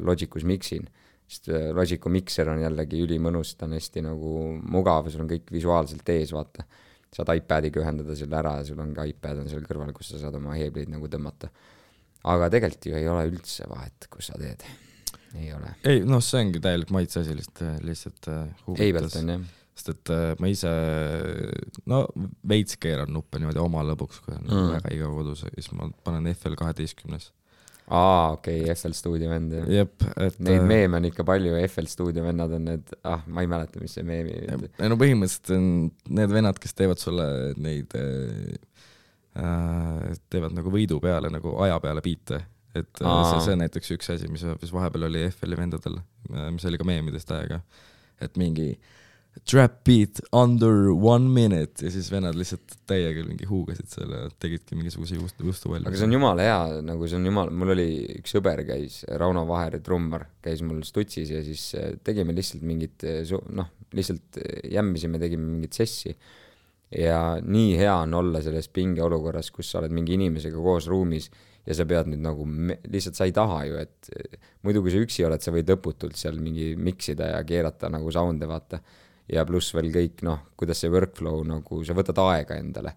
Logicus mixin, sest Logicu mixer on jällegi ülimõnus, ta on hästi nagu mugav, sul on kõik visuaalselt ees, vaata. Saad iPadiga ühendada selle ära ja sul on ka iPad on seal kõrval, kus sa saad oma heebleid nagu tõmmata. Aga tegelikult ju ei ole üldse vahet, kus sa teed. Ei ole. Ei, noh, see ongi täielik maitse asi lihtsalt huvitas. Ableton, jah. Sest et ma ise, no veits keeran nuppe niimoodi oma lõbuks, kui on väga iga kodus, siis ma panen FL12. Okei, FL Studio vend. Jep, et neid meeme on ikka palju, FL Studio vennad on need, ma ei mäleta, mis see meemi. No põhimõtteliselt on need vennad, kes teevad sulle neid, teevad nagu võidu peale, nagu aja peale biite. Et see on näiteks üks asi, mis vahepeal oli FL-i vendadel, mis oli ka meemidest aega, et mingi trap beat under 1 minute ja siis vennad lihtsalt täiega mingi huugasid selle, tegidki mingisuguse juustu välja. Aga see on jumala hea, nagu see on jumala, mul oli üks sõber käis, Rauno Vaher, trummar, käis mul Stutsis ja siis tegime lihtsalt mingit, noh, lihtsalt jämmisime, tegime mingit sessi ja nii hea on olla selles pingeolukorras, kus sa oled mingi inimesega koos ruumis ja sa pead nüüd nagu, lihtsalt sa ei taha ju, et muidu kui sa üksi oled, sa võid lõputult seal mingi miksida ja keerata nagu sound'e, vaata. Ja pluss veel kõik, noh, kuidas see workflow, nagu sa võtad aega endale.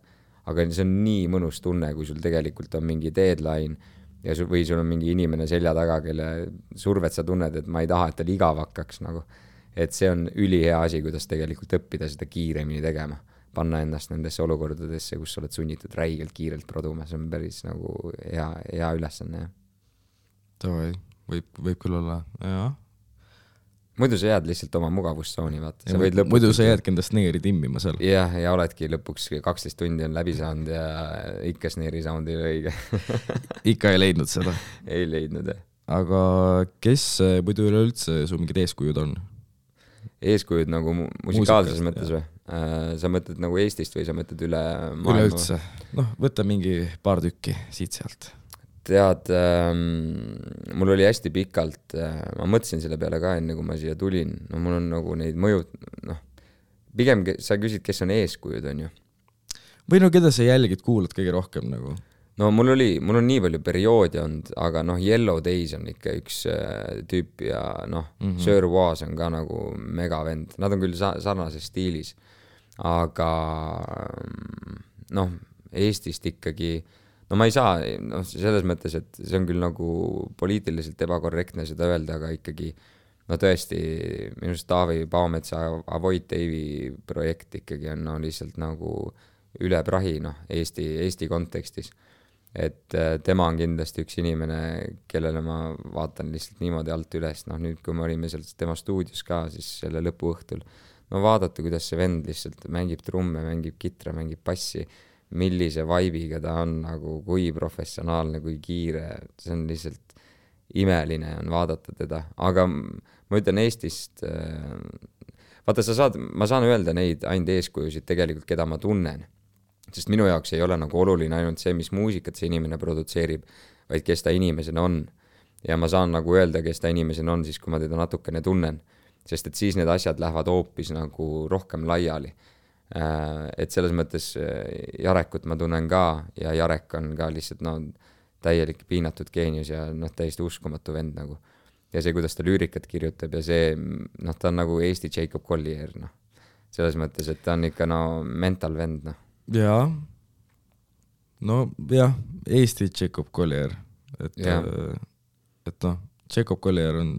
Aga see on nii mõnus tunne, kui sul tegelikult on mingi deadline ja või sul on mingi inimene selja taga, kelle survet sa tunned, et ma ei taha, et tal igav hakkaks nagu. Et see on ülihea asi, kuidas tegelikult õppida seda kiiremini tegema. Panna ennast nendesse olukordadesse, kus sa oled sunnitud räigelt kiirelt produma. See on päris nagu hea ülesanne. Tavai, võib küll olla, jah. Muidu sa jääd lihtsalt oma mugavustsooni, vaata. Muidu sa jäädki enda sneeri timmima seal. Ja oledki lõpuks 12 tundi on läbi saanud ja ikka sneeri sound ei ole õige. Ikka ei leidnud seda? Ei leidnud, jah. Aga kes muidu üleüldse su mingid eeskujud on? Eeskujud nagu musikaalses mõttes või? Sa mõtled nagu Eestist või sa mõtled üle maailma? Üleüldse. Noh, võta mingi paar tükki siit sealt. Tead, mul oli hästi pikalt, ma mõtlesin selle peale ka enne, kui ma siia tulin, no mul on nagu neid mõjud, noh, pigem sa küsid, kes on eeskujud, on ju? Või no keda sa jälgid, kuulad kõige rohkem nagu? No mul on nii palju perioodi olnud, aga noh, Yellow Days on ikka üks tüüp ja noh, Sir Was on ka nagu megavend, nad on küll sarnases stiilis, aga noh, Eestist ikkagi no ma ei saa, noh, selles mõttes, et see on küll nagu poliitiliselt ebakorrektne seda öelda, aga ikkagi, no tõesti, minust Taavi Paometsa Avoid Dave'i projekt ikkagi on no, lihtsalt nagu üle prahi, noh, Eesti kontekstis. Et tema on kindlasti üks inimene, kellele ma vaatan lihtsalt niimoodi alt üles, noh nüüd, kui me olime seal tema stuudios ka, siis selle lõpuõhtul, no vaadata, kuidas see vend lihtsalt mängib trumme, mängib kitra, mängib bassi, millise vibe'iga ta on, nagu kui professionaalne, kui kiire, see on lihtsalt imeline on vaadata teda, aga ma ütlen Eestist, vaata ma saan öelda neid ainult eeskujusid tegelikult, keda ma tunnen, sest minu jaoks ei ole nagu oluline ainult see, mis muusikat see inimene produtseerib, vaid kes ta inimesena on ja ma saan nagu öelda, kes ta inimesena on siis, kui ma teda natukene tunnen sest et siis need asjad lähevad hoopis nagu rohkem laiali. Et selles mõttes Jarekut ma tunnen ka ja Jarek on ka lihtsalt täielik piinatud geenius ja täiesti uskumatu vend nagu. Ja see, kuidas ta lüürikat kirjutab ja see, ta on nagu Eesti Jacob Collier, selles mõttes, et ta on ikka mental vend, Jaa, Eesti Jacob Collier, et Jacob Collier on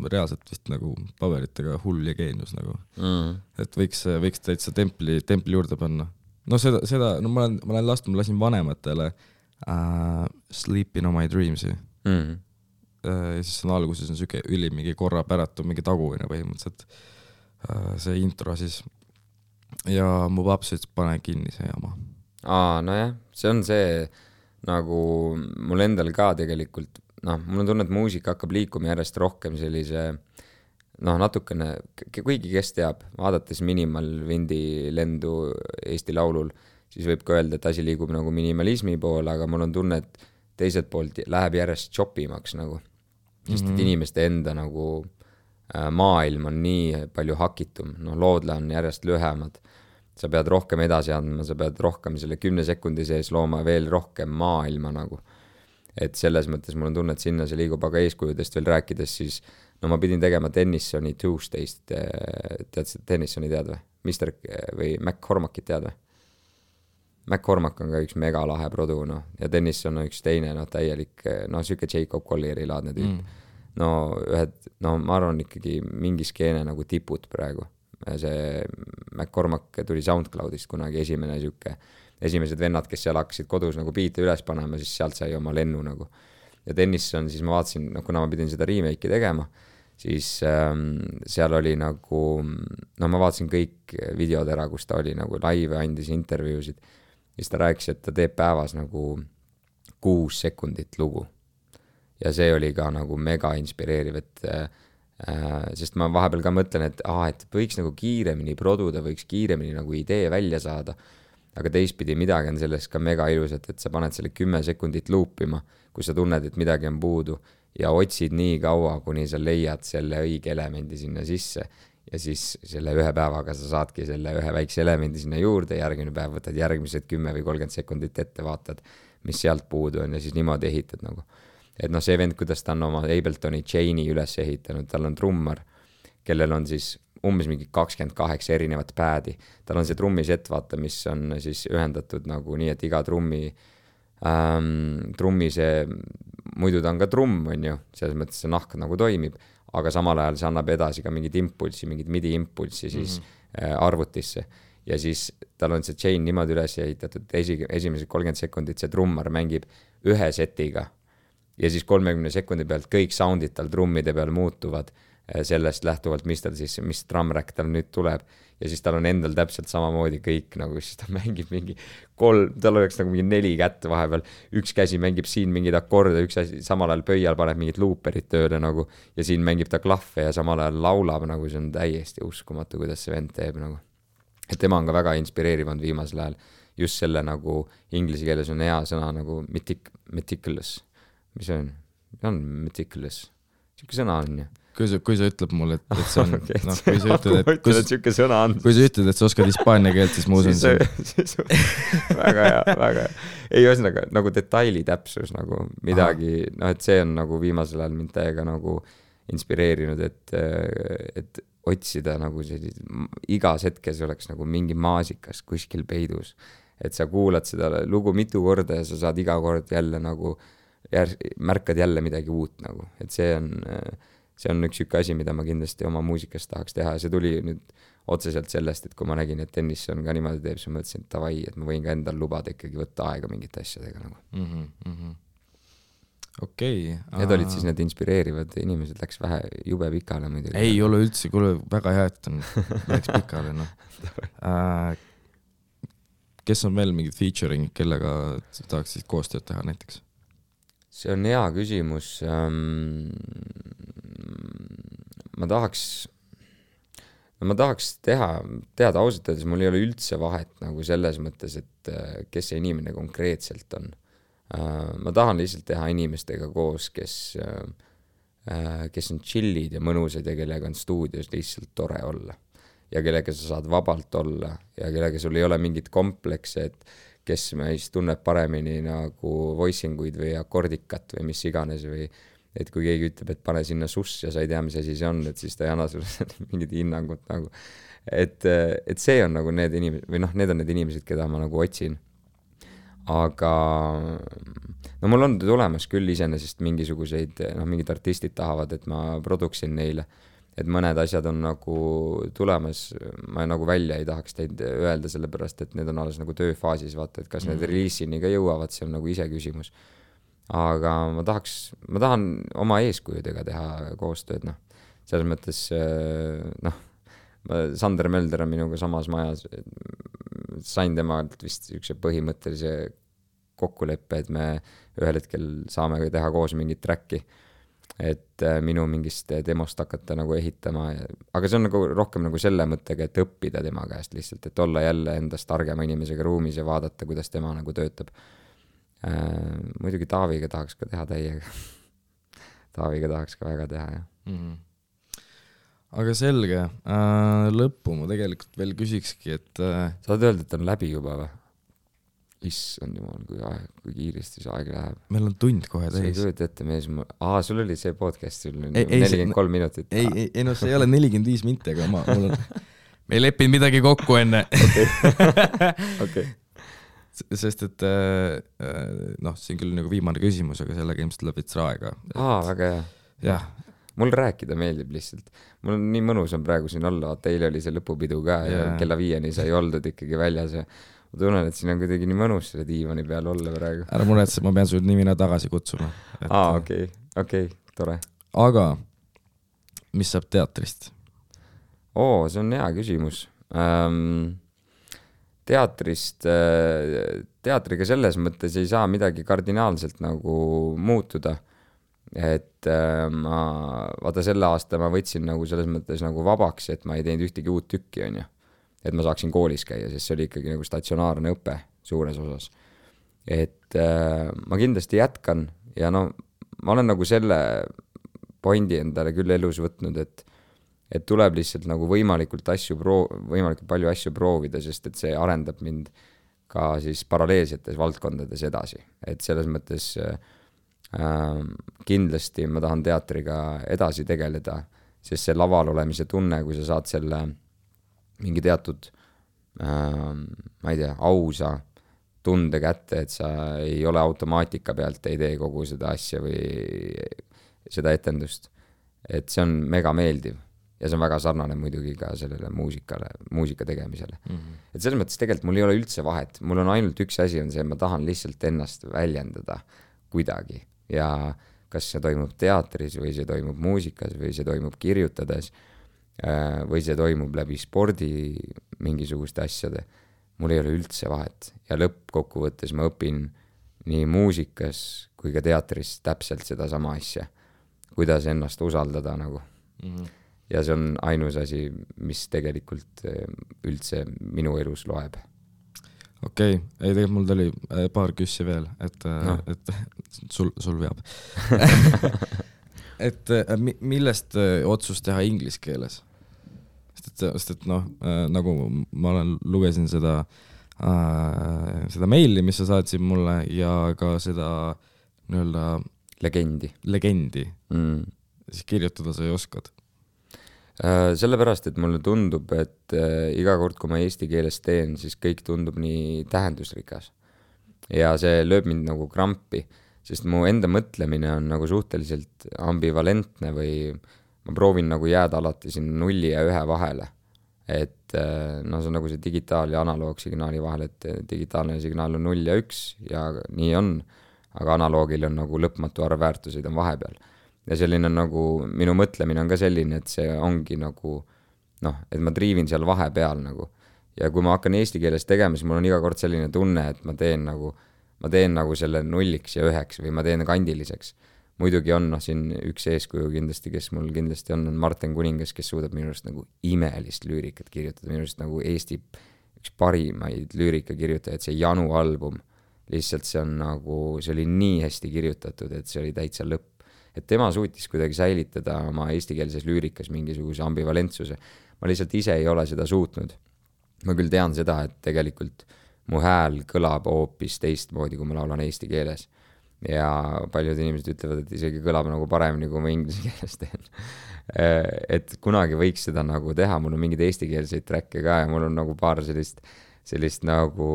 reaalselt vist nagu paberitega hull ja geenius nagu. Et võiks täitsa templi juurde panna. Seda ma lasin vanematele Sleeping on my dreams'i. Ja siis on alguses on süke mingi korra päratu, mingi taguvine põhimõtteliselt see intro siis. Ja mu paps ütles, pane kinni see jama. Nojah, see on see nagu mul endal ka tegelikult, mul on tunne, et muusika hakkab liikuma järjest rohkem sellise, natukene, kuigi kes teab, vaadates Minimal Windi lendu Eesti Laulul, siis võib ka öelda, et asi liigub nagu minimalismi poole, aga mul on tunne, et teiselt poolt läheb järjest chopimaks nagu, sest et inimeste enda nagu maailm on nii palju hakitum, loodle on järjest lühemad, sa pead rohkem edasi andma, sa pead rohkem selle 10 sekundi sees looma veel rohkem maailma nagu. Et selles mõttes mul on tunne, et sinna see liigub, aga eeskujudest veel rääkides, siis ma pidin tegema Tennissoni Tuesday'st, tead Tennissoni tead või? Mister või McCormackit tead või? McCormack on ka üks mega lahe produ, ja Tennisson on üks teine, täielik, süke Jacob Collieri laadne tüüp. Ma arvan ikkagi mingi skeene nagu tipud praegu. See McCormack tuli SoundCloudist kunagi esimesed vennad, kes seal hakkasid kodus nagu biite üles panema, siis sealt sai oma lennu nagu. Ja Tennisson, siis ma vaatasin, kuna ma pidin seda remake'i tegema, siis seal oli nagu, ma vaatasin kõik videod ära, kus ta oli nagu live, andis intervjuusid, siis ta rääkis, et ta teeb päevas nagu 6 sekundit lugu. Ja see oli ka nagu mega inspireeriv, sest ma vahepeal ka mõtlen, et võiks nagu kiiremini produda, võiks kiiremini nagu idee välja saada, aga teistpidi midagi on sellest ka mega ilusat, et sa paned selle 10 sekundit loopima, kui sa tunned, et midagi on puudu ja otsid nii kaua, kuni sa leiad selle õige elemendi sinna sisse ja siis selle ühe päevaga sa saadki selle ühe väikse elemendi sinna juurde, järgmine päev võtad järgmised 10 või 30 sekundit ette, vaatad, mis sealt puudu on ja siis niimoodi ehitad nagu. Et see vend, kuidas ta on oma Abletoni Chain'i üles ehitanud, tal on trummar, kellel on siis umbes mingi 28 erinevat päädi. Tal on see trummisett, vaata, mis on siis ühendatud nagu nii, et iga trummi see, muidu ta on ka trumm, on ju, selles mõttes see nahk nagu toimib, aga samal ajal see annab edasi ka mingid impulsi, mingid midi impulsi siis arvutisse. Ja siis tal on see chain niimoodi üles ehitatud, esimesed 30 sekundit see trummar mängib ühe setiga ja siis 30 sekundi pealt kõik soundid tal trummide peal muutuvad sellest lähtuvalt, mis drumrack tal nüüd tuleb ja siis tal on endal täpselt samamoodi kõik nagu, siis ta mängib mingi tal oleks nagu mingi 4 kätt vahepeal, üks käsi mängib siin mingid akorde, üks asi samal ajal pöial paneb mingid looperid tööle nagu ja siin mängib ta klahve ja samal ajal laulab nagu, see on täiesti uskumatu, kuidas see vend teeb nagu. Et tema on ka väga inspireerivanud viimasel ajal, just selle nagu inglise keeles on hea sõna nagu meticulous. Mis see on? On meticulous. Siuke sõna on ju. Kui sa ütleb mulle, et see on... kui sa ütled, et sa oskad hispaania keelt, siis ma usun see. Väga hea, väga hea. Ei, ühesõnaga, nagu detaili täpsus nagu midagi, et see on nagu viimasel ajal mind täiega nagu inspireerinud, et otsida nagu igas hetkes oleks nagu mingi maasikas kuskil peidus. Et sa kuulad seda lugu mitu korda ja sa saad iga kord jälle nagu märkad jälle midagi uut nagu, et see on üks siuke asi, mida ma kindlasti oma muusikas tahaks teha ja see tuli nüüd otseselt sellest, et kui ma nägin, et Tennisson ka niimoodi teeb, siis ma mõtlesin, et tavai, et ma võin ka endal lubada ikkagi võtta aega mingite asjadega nagu. Okei. Need olid siis need inspireerivad inimesed, läks vähe jube pikale muidugi. Ei ole üldse, kuule väga hea, et läks pikale Kes on veel mingid featuring, kellega tahaks siis koostööd teha näiteks? See on hea küsimus. Ma tahaks teada ausalt öeldes, mul ei ole üldse vahet nagu selles mõttes, et kes see inimene konkreetselt on. Ma tahan lihtsalt teha inimestega koos, kes kes on chillid ja mõnusad ja kellega on stuudios lihtsalt tore olla. Ja kellega sa saad vabalt olla ja kellega sul ei ole mingit komplekse, et kes meist tunneb paremini nagu voicinguid või akordikat või mis iganes või et kui keegi ütleb, et pane sinna suss ja sa ei tea, mis asi see on, et siis ta ei anna sulle mingit hinnangut nagu. Et see on nagu need inimesed, või noh, need on need inimesed, keda ma nagu otsin. Aga no mul on tulemas küll iseenesest mingisuguseid, noh, mingid artistid tahavad, et ma produksin neile. Et mõned asjad on nagu tulemas, ma nagu välja ei tahaks teid öelda sellepärast, et need on alles nagu tööfaasis, vaata, et kas need releasini ka jõuavad, see on nagu ise küsimus. Aga ma tahan oma eeskujudega teha koostööd, noh. Selles mõttes, noh, Sander Mölder on minuga samas majas, sain temalt vist üks põhimõttelise kokkuleppe, et me ühel hetkel saame teha koos mingit tracki, et minu mingist demost hakata nagu ehitama, aga see on nagu rohkem nagu selle mõttega, et õppida tema käest lihtsalt, et olla jälle endast targema inimesega ruumis ja vaadata, kuidas tema nagu töötab. Muidugi Taaviga tahaks ka teha täiega. Taaviga tahaks ka väga teha, jah. Aga selge, lõppu ma tegelikult veel küsikski, et saad öelda, et on läbi juba või? Issand jumal, kui kiiresti see aeg läheb. Meil on tund kohe täis. See ei kujut ette mees, sul oli see podcast, sul 43 minutit. Ei, no see ei ole 45 minti, aga mul on... me ei leppinud midagi kokku enne. Okay. Sest et noh, see on küll nagu viimane küsimus, aga sellega ilmselt läheb veits aega. Väga hea. Jah. Mul rääkida meeldib lihtsalt. Mul on nii mõnus on praegu siin olla, eile oli see lõpupidu ka ja kella 5 sai oldud ikkagi väljas ja ma tunnen, et siin on kuidagi nii mõnus selle diivani peal olla praegu. Ära muretse, ma pean sul nimina tagasi kutsuma. Okei, tore. Aga mis saab teatrist? See on hea küsimus. Teatriga selles mõttes ei saa midagi kardinaalselt nagu muutuda. Et vaata selle aasta ma võtsin nagu selles mõttes nagu vabaks, et ma ei teinud ühtegi uut tükki, on ju. Et ma saaksin koolis käia, sest see oli ikkagi nagu statsionaarne õpe suures osas. Et ma kindlasti jätkan ja no ma olen nagu selle pointi endale küll elus võtnud, et tuleb lihtsalt nagu võimalikult palju asju proovida, sest et see arendab mind ka siis paralleelsetes valdkondades edasi. Et selles mõttes kindlasti ma tahan teatriga edasi tegeleda, sest see laval olemise tunne, kui sa saad selle mingi teatud, ma ei tea, ausa tunde kätte, et sa ei ole automaatika pealt, ei tee kogu seda asja või seda etendust. Et see on mega meeldiv ja see on väga sarnane muidugi ka sellele muusika tegemisele. Et selles mõttes tegelikult mul ei ole üldse vahet, mul on ainult üks asi on see, ma tahan lihtsalt ennast väljendada kuidagi ja kas see toimub teatris või see toimub muusikas või see toimub kirjutades või see toimub läbi spordi mingisuguste asjade, mul ei ole üldse vahet ja lõppkokkuvõttes ma õpin nii muusikas kui ka teatris täpselt seda sama asja, kuidas ennast usaldada nagu. Ja see on ainus asi, mis tegelikult üldse minu elus loeb. Okei, ei tegelikult mul tuli paar küssi veel, et sul veab. Et millest otsus teha inglise keeles? Sest et noh, nagu ma lugesin seda meili, mis sa saatsid mulle ja ka seda nii-öelda legendi. Siis kirjutada sa ei oskad. Sellepärast, et mulle tundub, et iga kord, kui ma eesti keeles teen, siis kõik tundub nii tähendusrikas. Ja see lööb mind nagu krampi, sest mu enda mõtlemine on nagu suhteliselt ambivalentne või ma proovin nagu jääda alati siin 0 ja 1 vahele. Et no see on nagu see digitaal- ja analoogsignaali vahel, et digitaalne signaal on 0 ja 1 ja nii on, aga analoogil on nagu lõpmatu arv väärtuseid on vahepeal. Ja selline nagu, minu mõtlemine on ka selline, et see ongi nagu, noh, et ma triivin seal vahepeal nagu. Ja kui ma hakkan eesti keeles tegema, siis mul on iga kord selline tunne, et ma teen nagu selle 0 ja 1 või ma teen kandiliseks. Muidugi on siin üks eeskuju kindlasti, kes mul kindlasti on Martin Kuningas, kes suudab minu arust nagu imelist lüürikat kirjutada, minu arust nagu Eesti üks parimaid lüürika kirjutajaid, see Janu album. Lihtsalt see oli nii hästi kirjutatud, et see oli täitsa lõpp. et tema suutis kuidagi säilitada oma eestikeelses lüürikas mingisuguse ambivalentsuse. Ma lihtsalt ise ei ole seda suutnud. Ma küll tean seda, et tegelikult mu hääl kõlab hoopis teistmoodi, kui ma laulan eesti keeles. Ja paljud inimesed ütlevad, et isegi kõlab nagu paremini, kui ma inglise keeles teen. Et kunagi võiks seda nagu teha, mul on mingid eestikeelseid tracke ka ja mul on nagu paar sellist nagu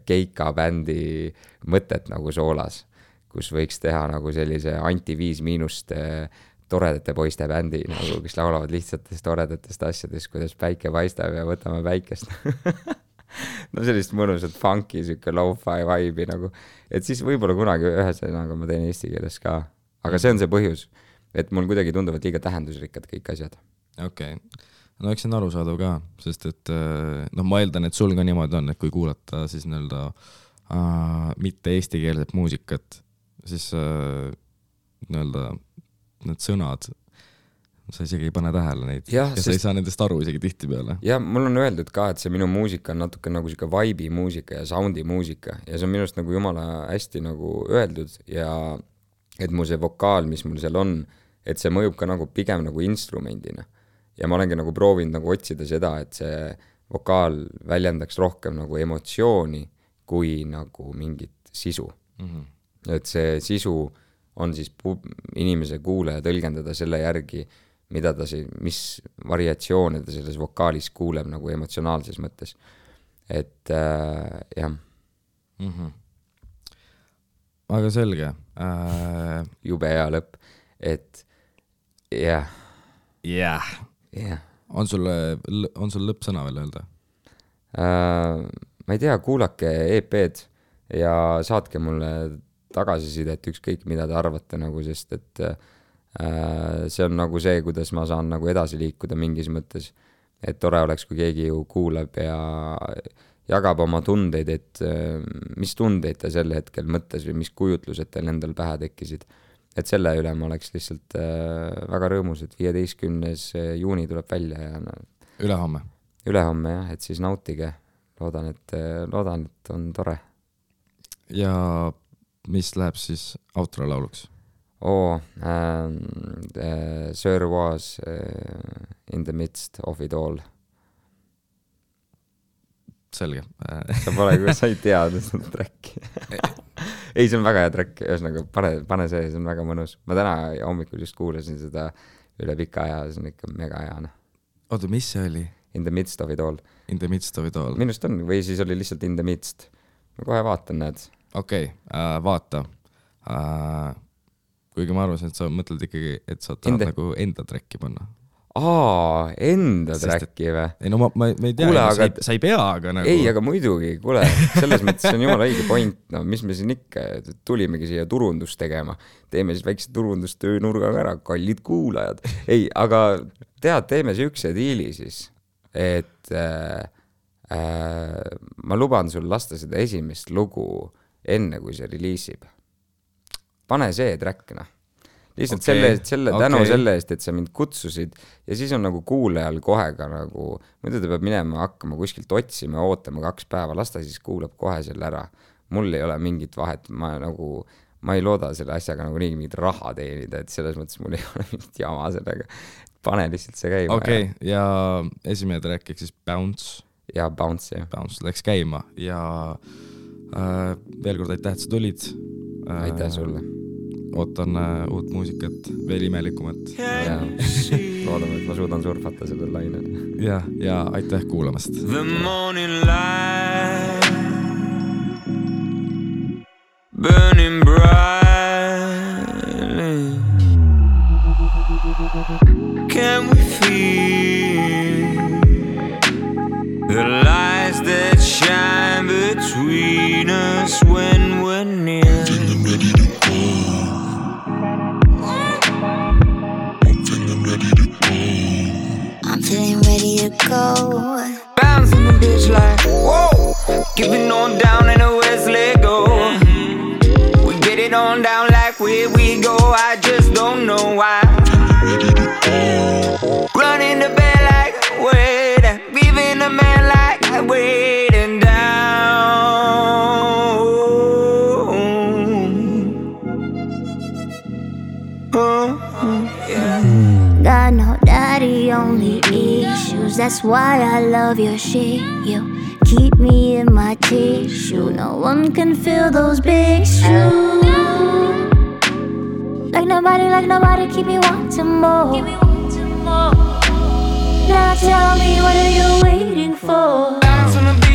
keika bändi mõtet nagu soolas, kus võiks teha nagu sellise Anti 5- toredate poiste bändi, nagu, kes laulavad lihtsatest toredatest asjadest, kuidas päike paistab ja võtame päikest. No sellist mõnusat funky, siuke lo-fi vibe'i nagu, et siis võib-olla kunagi ühesõnaga ma teen eesti keeles ka, aga see on see põhjus, et mul kuidagi tunduvad liiga tähendusrikkad kõik asjad. Okei. No eks see on arusaadav ka, sest et ma eeldan, et sul ka niimoodi on, et kui kuulata siis mitte eestikeelset muusikat, siis need sõnad, sa isegi ei pane tähele neid ja sa ei saa nendest aru isegi tihti peale. Ja mul on öeldud ka, et see minu muusika on natuke nagu siuke vibe'i muusika ja soundi muusika ja see on minust nagu jumala hästi nagu öeldud ja et mu see vokaal, mis mul seal on, et see mõjub ka nagu pigem nagu instrumendina ja ma olengi nagu proovinud nagu otsida seda, et see vokaal väljendaks rohkem nagu emotsiooni kui nagu mingit sisu. Et see sisu on siis inimese kuulaja tõlgendada selle järgi, mida ta mis variatsioone ta selles vokaalis kuuleb nagu emotsionaalses mõttes. Et jah. Aga selge. Jube hea lõpp. Et jah. Jah. On sul lõppsõna veel öelda? Ma ei tea, kuulake EP-d ja saatke mulle tagasisidet ükskõik, mida te arvate nagu, sest et see on nagu see, kuidas ma saan nagu edasi liikuda mingis mõttes, et tore oleks, kui keegi ju kuulab ja jagab oma tundeid, et mis tundeid ta sel hetkel mõttes või mis kujutlused teil endal pähe tekkisid. Et selle üle ma oleks lihtsalt väga rõõmus, et 15. juuni tuleb välja ja Ülehomme jah, et siis nautige. Loodan, et on tore. Ja mis läheb siis outro lauluks? Sir was in the midst of it all. Selge. Sa ei teada seda tracki. Ei, see on väga hea track, ühesõnaga pane see on väga mõnus. Ma täna hommikul just kuulasin seda üle pika aja, see on ikka mega hea. Oota, mis see oli? In the midst of it all. In the midst of it all. Minust on, või siis oli lihtsalt in the midst. Ma kohe vaatan, näed. Okei, vaata. Kuigi ma arvasin, et sa mõtled ikkagi, et sa tahad nagu enda tracki panna. Enda tracki või? Ei, no ma ei tea, aga sa ei pea, aga nagu... Ei, aga muidugi, kuule, selles mõttes on jumala õige point, no mis me siin ikka, tulimegi siia turundust tegema, teeme siis väikse turundustöö nurgaga ära, kallid kuulajad. Ei, aga teeme siukse diili siis, et ma luban sul lasta seda esimest lugu enne, kui see reliisib. Pane see track, lihtsalt tänu selle eest, et sa mind kutsusid ja siis on nagu kuulajal kohe ka nagu, muidu ta peab minema hakkama kuskilt otsima ja ootama 2 päeva, lasta siis kuulab kohe selle ära. Mul ei ole mingit vahet, ma ei looda selle asjaga nagu nii mingit raha teenida, et selles mõttes mul ei ole mingit jama sellega. Pane lihtsalt see käima. Okei, ja esimene track ehk siis Bounce. Ja Bounce, jah. Bounce läks käima ja veel kord aitäh, et sa tulid. Aitäh sulle. Ootan uut muusikat, veel imelikumat. Ja loodame, et ma suudan surfata sellel lainel. Ja aitäh kuulamast. The morning light burning brightly, can we feel the lights that shine between us when we're near? I'm feeling ready to go. Bouncing the bitch like, whoa. Giving on down in a Wesley go. We get it on down like where we go. I just don't know why. Running the bed like wait. Leaving the man like waiting down. Oh. Got no daddy, only issues. That's why I love your shit. You keep me in my tissue. No one can fill those big shoes. Like nobody, keep me wanting more. Now tell me, what are you waiting for? Bounce on the